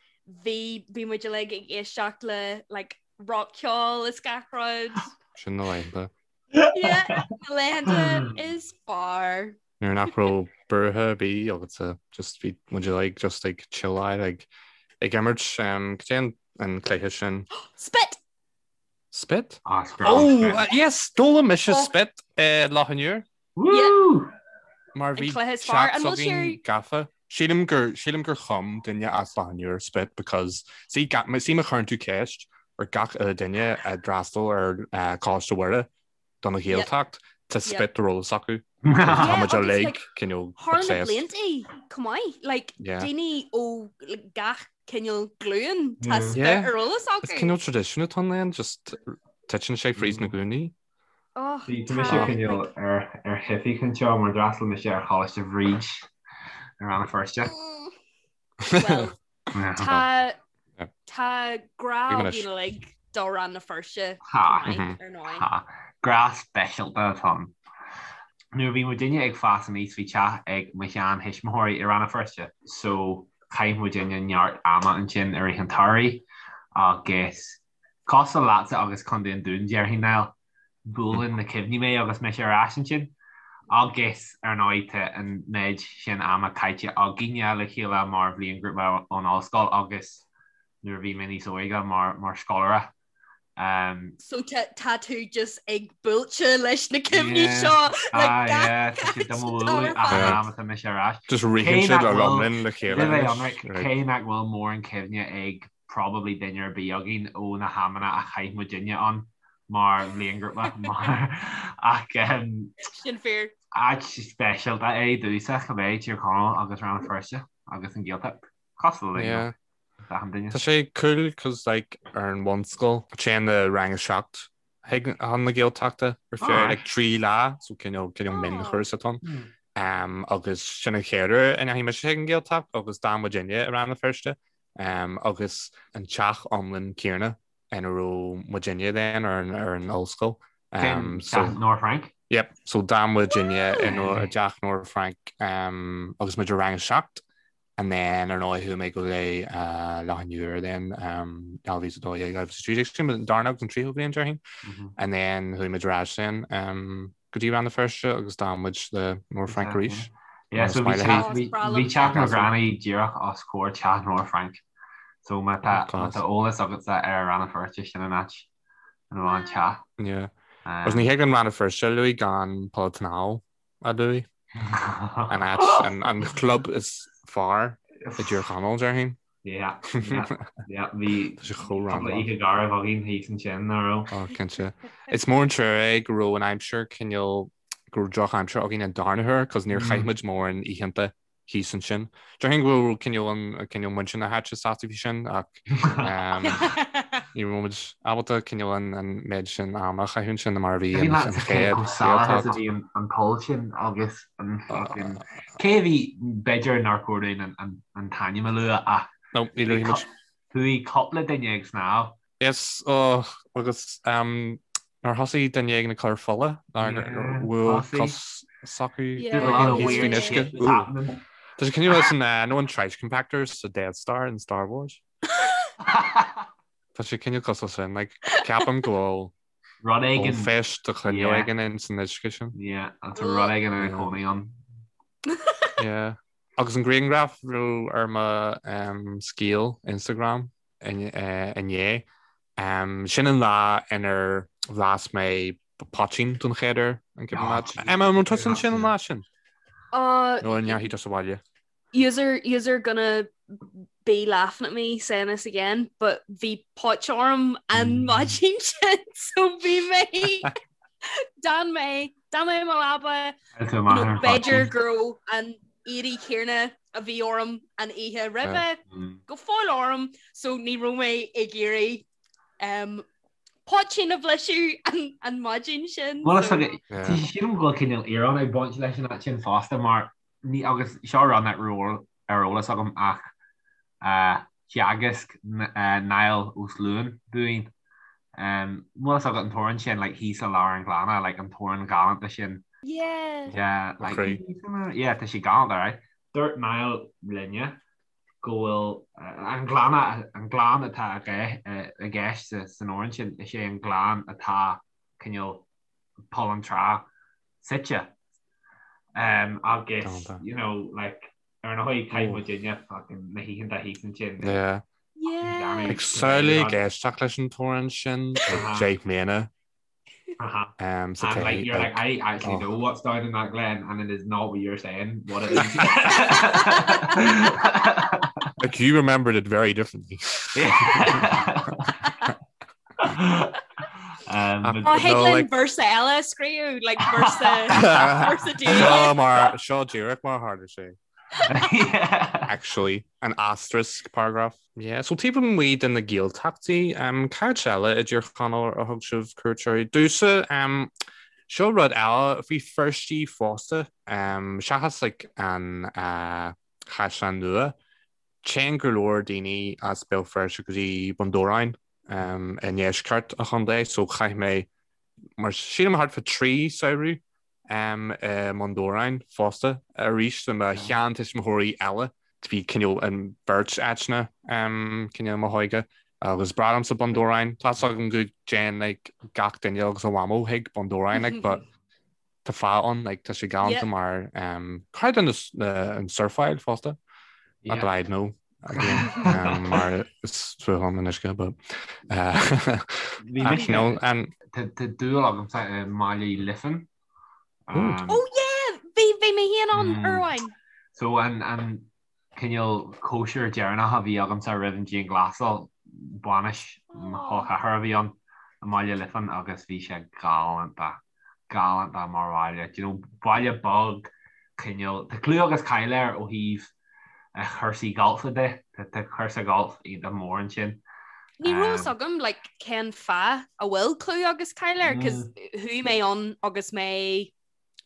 bhí bhí muid uilig ag éisteacht le like rockcheol is gach rud. Sin na laethanta. Yeah, na laethanta is fearr. Nuair nach raibh buartha ar bith agatsa just bhí muid like just like chilláil like ag imirt um, cad é an an cluiche sin? Spit! Spit? Ah, is breá Oh, spit. yes, d'fhoghlaim mise Oh. spit i Loch an Iúir. Woo! Mar An bhí cluiche is fearr. teach An bhfuil s'againn sé gafa. Sílim gur sílim gur chum duine as Loch an Iúir spit because see ga- see má chuireann tú ceist ar gach uile duine a d'fhreastail ar uh, Coláiste Mhuire don Ghaeltacht tá spit ar eolas acu. Tá muid uilig cineál Thar na obsessed. blianta chomh maith, like Yeah. daoine ó like, gach cineál glúin tá Yeah. spit Yeah. ar eolas Is acu. cineál tradition atá ann just titeann sé fríd na glúine. Oh, Bhí mise tá cineál like ar ar theifigh anseo mar d'fhreastail mise ar Choláiste Bhríd i Rann na Feirste. mm, well Yeah. tá Yeah. tá grá Bhí anois. againn uilig do Rann na Feirste Ha. chomh maith Mhm. ar ndóigh. Ha. Grá speisialta atá ann. Nuair a bhí muidinne ag fás aníos bhí teach ag mo shean-thuismitheoirí i Rann na Feirste so chaith muidinne neart ama ansin i rith an tsamhraidh agus cosúil leatsa agus Contae an Dúin déarfainn Niall, buaileann na cuimhní mé agus mise ar ais ansin. Agus ar ndóigh tá an méid sin ama caite againne le chéile mar bhliainghrúpa ón ollscoil agus nuair a bhí mé níos óige mar mar scoláire. Um, So tá tá tú just ag buailte leis na cuimhní Yeah. seo le ah, gach yeah, tá siad do mo áit bhualadh ar ach an fad. am atá mise ar ais. Just Cé ritheann siad nach le bhfuil lomlinn le chéile le bheith anois. ionraic, Right. cé nach bhfuil mórán cuimhne ag probably duine ar bith againn ó na hamanna a chaith muidinne ann mar bhliainghrúpa mar ach um, Sin fíor. áit speisialta é domhsa cibé Tír Chonaill agus Rann na Feirste agus an Ghaeltacht. Cosúil le Yeah. achan duine. Tá sé cool cos like ar an bhunscoil téann na rang a 7 chuig chun na Gaeltachta ar feadh Alright. like 3 lá so cineál cineál Oh. mionchúrsa atá ann. Hmm. Um, agus sin an chéad uair a ndeachaigh mise chuig an Ghaeltacht agus d'fhan muidinne i Rann na Feirste um, agus an teach iomlán céanna ina raibh muidinne then ar an, ar an ollscoil. Um, Sin so teach Nora Frank. Yep, so d'fhan muidinne Woo! i Nora- i dteach Nora Frank um, agus muid i rang a 7 and then ar ndóigh chuaigh mé go dtí uh, Loch an Iúir then um, 2012 2013 sin an darna agus an tríú bliain déarfainn Mhm. and then chuaigh muid ar ais then um, go dtí Rann na Feirste agus d'fhan muid le Nora Frank arís. Yeah, so bhí teach na granny díreach os comhair teach Nóra Frainc. So má tá eolas agatsa ar Rann na Feirste sin an áit ina raibh an teach. Yeah. Agus ní thig an Rann na Feirste a lua gan Poll an tSnámha a lua. An áit, an club is fearr i dTír Chonaill, déarfainn. Yeah, yeah, yeah, bhí Tá sé chomh cúpla oíche garbh againn thíos ansin, nach raibh? Oh, cinnte. Is mór an trua é go raibh an aimsir cineál, go raibh drochaimsir againn an darna huair, cos níor chaith muid mórán oícheanta thíos ansin. Déarfainn go raibh cineál an, cineál muintir na háite sásta faoi sin, ach ní raibh muid ábalta cineál an, an méid sin ama a chaitheamh ansin mar a bhí an, an chéad, Chomh salach is a bhí an, an poll sin agus an fucking Cé a bhí, b'fhéidir nár chóir dúinn an t-ainm a lua ach No, ní luafaidh muid. Chuaigh cúpla duine ag snámh. Yes, oh, agus nár thosaigh duine éigin ag cur fola, nár bhuail cos s'acu thíos faoin uisce. Tá sé cineál leis an, nó an trash compactors sa Death Star in Star Wars. Tá sé cineál cosúil sin, like, ceapaim go bhfuil Rud éigin. Ollphéist de chineál éigin in san uisce sin. Yeah, tá rud éigin ina chónaí ann. Yeah. Agus an grianghraf a raibh ar mo scéal Instagram inné, sin an lá inar bhlas mé poitín don chéad uair, an cuimhin leat? Emma, an raibh tusa ansin an lá sin? Nó an ndeachaigh tusa abhaile? Yous are, yous are gonna be laughing at me saying this again, but bhí póit orm an maidin sin so bhí mé d'fhan mé d'fhan mé i mo leaba b'fhéidir go raibh an éadaí céanna a bhí orm an oíche roimhe go fóill orm so ní raibh mé ag iarraidh um, poitín a bhlaiseadh an, an maidin sin. Well, so... Sílim go bhfuil cineál íoróin ag baint leis an áit sin fosta mar Ní, agus seo rud nach raibh ar eolas agam ach theagasc Niall Ó Sluain dúinn. Bhfuil fhios agat an t-amhrán sin, like, thíos i lár an ghleanna, like, an t-amhrán galánta sin. Yeah. Yeah, like, yeah, tá sé galánta, right? Dúirt Niall linne go bhfuil an gleanna, an gleann atá i gceist san amhrán sin, is é an gleann atá cineál Poll an Trá suite. Um, agus, you know, like, ar ndóigh chaith muidinne fucking na hoícheanta thíos ansin. Yeah. Yeah. Ag samhlaigh ag éisteacht leis an t-amhrán sin ag 10 mbliana. Uh-huh. Um, so and like, you're like, I actually oh. know what's down in that glen and it is not what you're saying, what it is. like you remembered it very differently. Yeah. Ó thig linn véarsa eile a scríobh, like véarsa véarsa Seo mar seo díreach mar a tharla sé. Actually, an asterisk paragraph. Yeah, so taobh amuigh de na Gaeltachtaí, um, cá háit eile i dTír Chonaill a thug sibh cuairt orthu? Domhsa, um, seo rud eile faoi Feirstí fosta, um, seachas like, an uh, Chaisleán Nua, Téann go leor daoine as Béal Feirste go dtí Bun Dobhráin i ndeisceart an chontae so chaith mé mar sílim thart fá 3 samhradh i mBun Dobhráin fosta arís le mo sheantuismitheoirí eile. Bhí cineál an bheirt áiteanna cineál i mo hóige agus breá liomsa Bun Dobhráin. Tá 's agam go dtéann like gach duine agus a mhamó chuig Bun Dobhráin like but Tá fáth ann, like, tá sé galánta mar um, cad an an surfáil fosta? Not that I'd know again, um, mar is fuath liom an uisce, but uh, ach, you know, an Tá dúil agamsa i mBaile Uí Liofáin. Um, Oh yeah! Bhí bhí mé féin ann uair amháin. So an an cineál cóisir deireanach a bhí agamsa roimh an dianghlasáil, bainis mo chol ceathar a bhí ann i mBaile Liofáin agus bhí sé galánta, galánta mar bhaile. Do you know, baile beag, cineál, tá clú agus cáil air ó thaobh chúrsaí gailf de, tá cúrsa gailf iontach mór ansin. Ní raibh fhios agam like cén fáth a bhfuil clú agus cáil air, 'cause chuaigh mé ann agus mé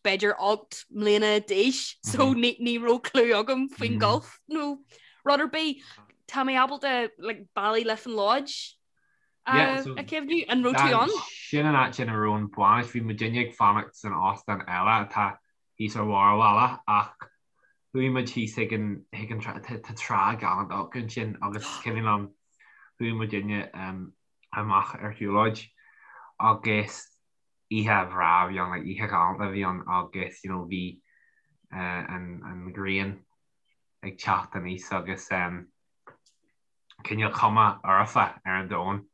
b'fhéidir 8 mbliana d'aois so ní raibh clue agam faoin golf nó rud ar bith. Tá mé ábalta like, Ballyliffin Lodge a chuimhniú an raibh tú ann? Sin an áit ina raibh an bhainis, bhí muidinne ag fanacht san óstán eile atá thíos ar bharr an bhaile ach chuaigh muid thíos chuig an chuig an tá trá galánta acu ansin agus is cuimhin liom chuaigh muidinne amach ar shiúlóid agus oíche bhreá a bhí ann, like oíche ghalánta a bhí ann agus you know bhí. an ghrian ag teacht aníos agus cineál cuma fhoirfe ar an domhan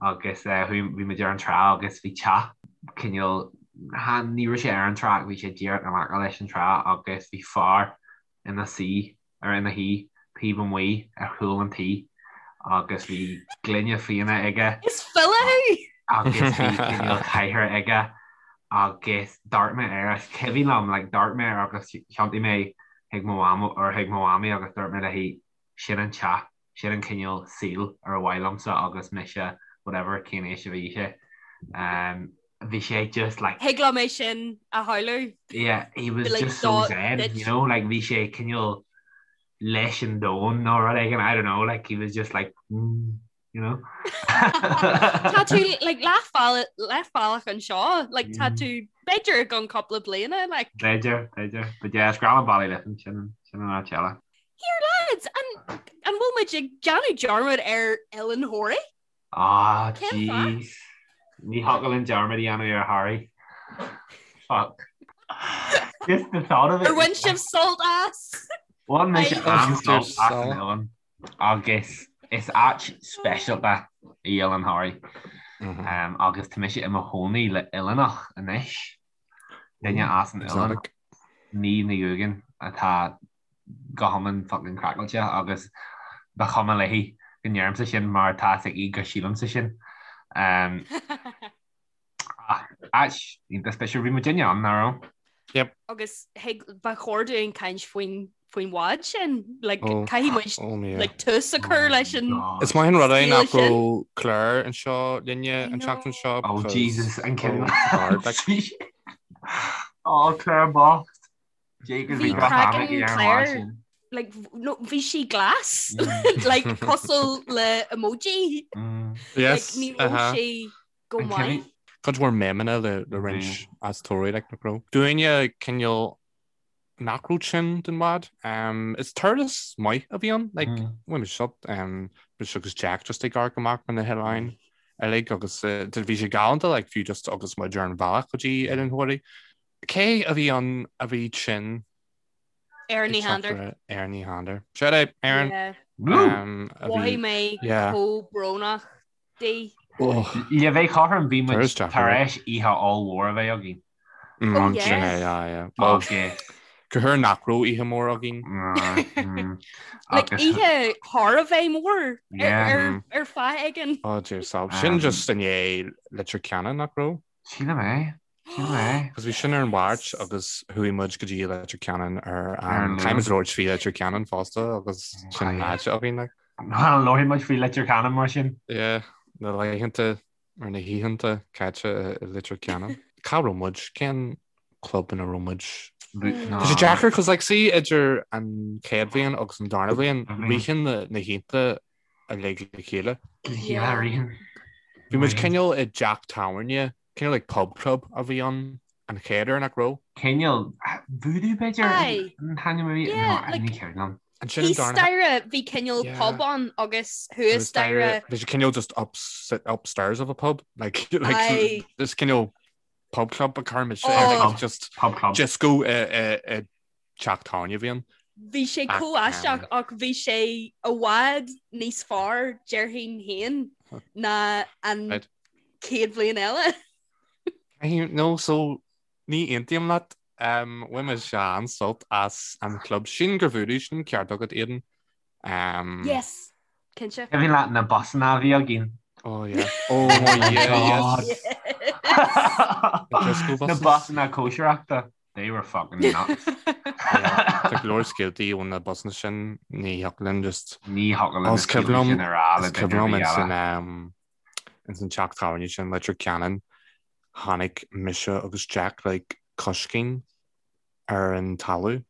agus bhí muid ar an trá agus bhí teach cineál, ní raibh sé ar an trá ach bhí sé díreach in aice leis an trá agus bhí fear ina suí ar ina shuí taobh amuigh ar chúl an tí agus bhí gloine fíona aige. Is file thú! Agus bhí cineál cathaoir aige agus d'amharc mé air is cuimhin liom like d'amharc mé air agus thiontaigh mé chuig mo mham or chuig mo mhamaí agus dúirt mé léi sin an teach, sin an cineál saoil ar mhaith liomsa agus mise whatever cén aois a bhí sé. Um, bhí sé just like Thig liom é sin a shamhlú. Yeah, he was like, just so zen, you know, like bhí sé cineál leis an domhan nó rud éigin, I don't know, like he was just like mm, you know. Tá tú like leathbhealach anseo, like tá mm. tú b'fhéidir i gceann cúpla bliana like. B'fhéidir, b'fhéidir, but yeah, is grá liom Ballyliffin sin sin an áit eile. Here lads, an an bhfuil muid ag déanamh dearmad ar Oileán Thoraí? Ah, jeez. Ní thiocfadh linn dearmad a dhéanamh ar Thoraigh. Fuck. Just the thought of it. Ar bhain sibh sult as? Bhain mise an-sult as an oileán agus is áit speisialta í Oileán Thoraí. Um, agus tá mise i mo chónaí le oileánach anois. Duine as an oileán. Ní Ní Dhúgan atá go hiomlán fucking craiceáilte agus ba chuma léi go ndeirimse sin mar tá a fhios aici go sílimse sin. Um, ach áit iontach speisialta bhí muidinne ann, nach raibh? Yep. Agus thig ba chóir dúinn caint faoin faoin bhád sin like, oh, caithfidh muid oh, yeah. like, tús a chur leis an Is maith an rud é nach raibh Claire anseo linne an tseachtain seo. Oh Jesus an cin Oh Claire bocht. Bhí craiceann Claire like, no, bhí sí glas mm. like, cosúil le emoji mm. yes, like, ní raibh uh -huh. sí go maith. Cuid mhór memeanna le, le roinnt mm. as Toraigh like, nach raibh. Dúinne cineál nach raibh tinn den bhád. Um, is turas maith a bhí ann like, mm. bhain sult um, mise agus Jack just ag amharc amach ar na hoileáin uilig agus uh, bhí sé galánta like, fiú just agus muid ar an bhealach go dtí Oileán Thoraí. Cé a bhí ann a bhí tinn? Erin Ní Shandair. Erin Ní Shandair. Shout out, Erin. Yeah. Um, Mhothaigh mé chomh brónach di. Le bheith cothrom bhí muid tar éis oíche ollmhór a bheith againn. Oh, yes. Sin é, yeah, yeah. Well, Go huair nach raibh oíche mhór againn. Like oíche thar a bheith mór ar fáth éigin. Oh dear sob. Sin just i ndiaidh Leitir Ceanainn nach raibh? Sílim é. Sílim é. Because bhí sin ar an Mháirt agus chuaigh muid go dtí Leitir Ceanainn ar an Caithfidh muid labhairt faoi Leitir Ceanainn fosta agus sin an áit againn like. Well, labharfaidh muid faoi Leitir Ceanainn mar sin. Yeah, na laethanta ar na hoícheanta caite i Leitir Ceanainn. Cá raibh muid? Cén club ina raibh muid? Tá sé deacair cos like see idir an chéad bhliain agus an darna bhliain ritheann na hoícheanta uilig le chéile. Yeah, ritheann. Bhí muid cineál i dteach tábhairne, cineál like pub club a bhí ann an chéad uair nach raibh? Cineál Voodoo b'fhéidir an t-ainm a bhí? Yeah, like, ní cuimhin liom. Ansin an Thíos darna staighre bhí cineál Yeah. pub ann agus thuas staighre Bhí sé cineál just up, upstairs of a pub like, like Aye. this cineál pub club a chuir muid Oh. like, just Pub club. disco i, i, i teach tábhairne a bhí ann. Bhí sé Ach, chomh aisteach ach bhí sé i bhfad níos fearr déarfainn féin ná an Right. chéad bhliain eile. Caithfidh- No, so ní aontaím leat. Um, bhain mise an-sult as an chlub sin gur Voodoo sin ceart agat Aidan. Um, Yes, cinnte. Cuimhin leat na busanna a bhí againn? Oh yeah. Oh yeah, yes. The disco Na buses. busanna cóisireachta. They were fucking nuts. Tá go leor scéaltaí ó na busanna sin ní thiocfadh linn just Ní thiocfadh linn na Is cuimhin scéaltaí liom sin a rá le is duine cuimhin ar liom bith ins eile. an um, ins an teach tábhairne sin Leitir Ceanainn tháinig mise agus Jack like coiscín ar an talamh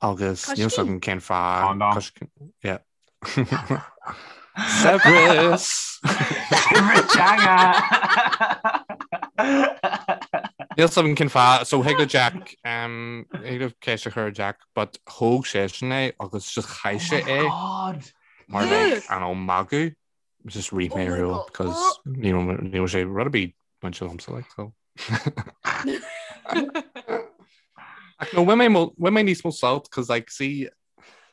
agus níl 's Coiscín? agam cén fáth Condom. coiscín yeah. Saibhreas! Saibhreas teanga! Níl 's agam cén fáth so thig le Jack um, thig le ceist a chur ar Jack but thóg seisean é agus just chaith sé Oh my é God! mar like an ó magadh just rith Oh mé my ar shiúl God. because ní raibh ní raibh sé rud ar bith bainte liomsa like so. Ach no, bhain mé bhain mé níos mó sult, cos like, see,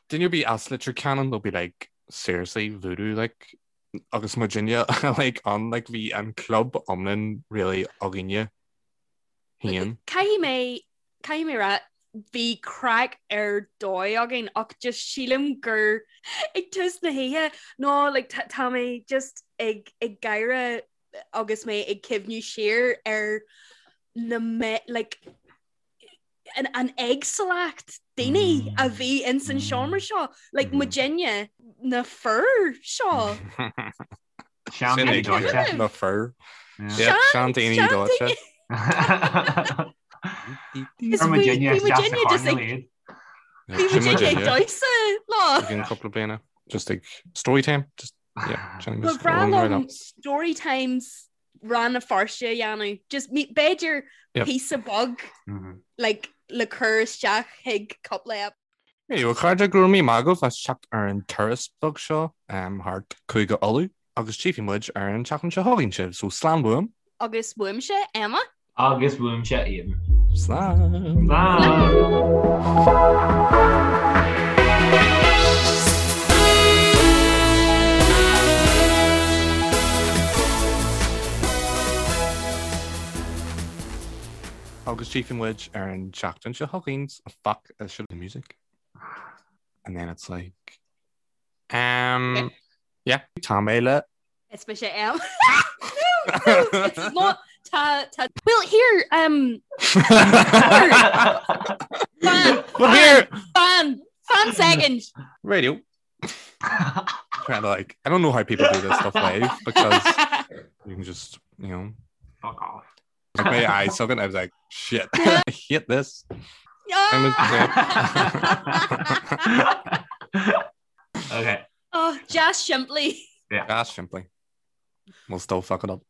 duine ar bith as Leitir Ceanainn, they'll be like, seriously, voodoo, like, agus muidinne like, ann, like, bhí an club iomlán really againne féin. Caithfidh mé, caithfidh mé rá, bhí craic ar dóigh againn ach just sílim gur ag tús na hoíche nó like, tá tá mé just ag ag gáire agus mé ag cuimhniú siar ar na me like, an, an éagsúlacht daoine a bhí ins an seomra seo, like muidinne na fir seo. Seandaoine dóite. Na fir. Seandaoine dóite. Bhí muidinne just ag Bhí muidinne ag damhsa lá. Ag cúpla bliana. Just ag story time. Just yeah. Ba bhreá liom story times Rann na Feirste a dhéanamh. Just b'fhéidir píosa beag like le cur isteach chuig cúpla ep. Anyway, a chairde, go raibh míle maith agaibh as teacht ar an turas beag seo thart Cúige Uladh agus tchífidh muid ar an tseachtain seo chugainn sibh, so slán uaim. Agus uaimse, Emma. Agus uaimse, Aidan. Slán. Slán. Agus tchífidh muid ar an tseachtain seo chugainn, fuck, I should the music. And then it's like um yeah, tá mé le Is mise Em. No, no, it's not tá tá Well here um Fan Well here fan fan second. Radio. Trying to like I don't know how people do this stuff live because you can just you know fuck off. Like my eyes something I was like shit I hate this. Okay. Oh, just simply. Yeah. Just simply. We'll still fuck it up.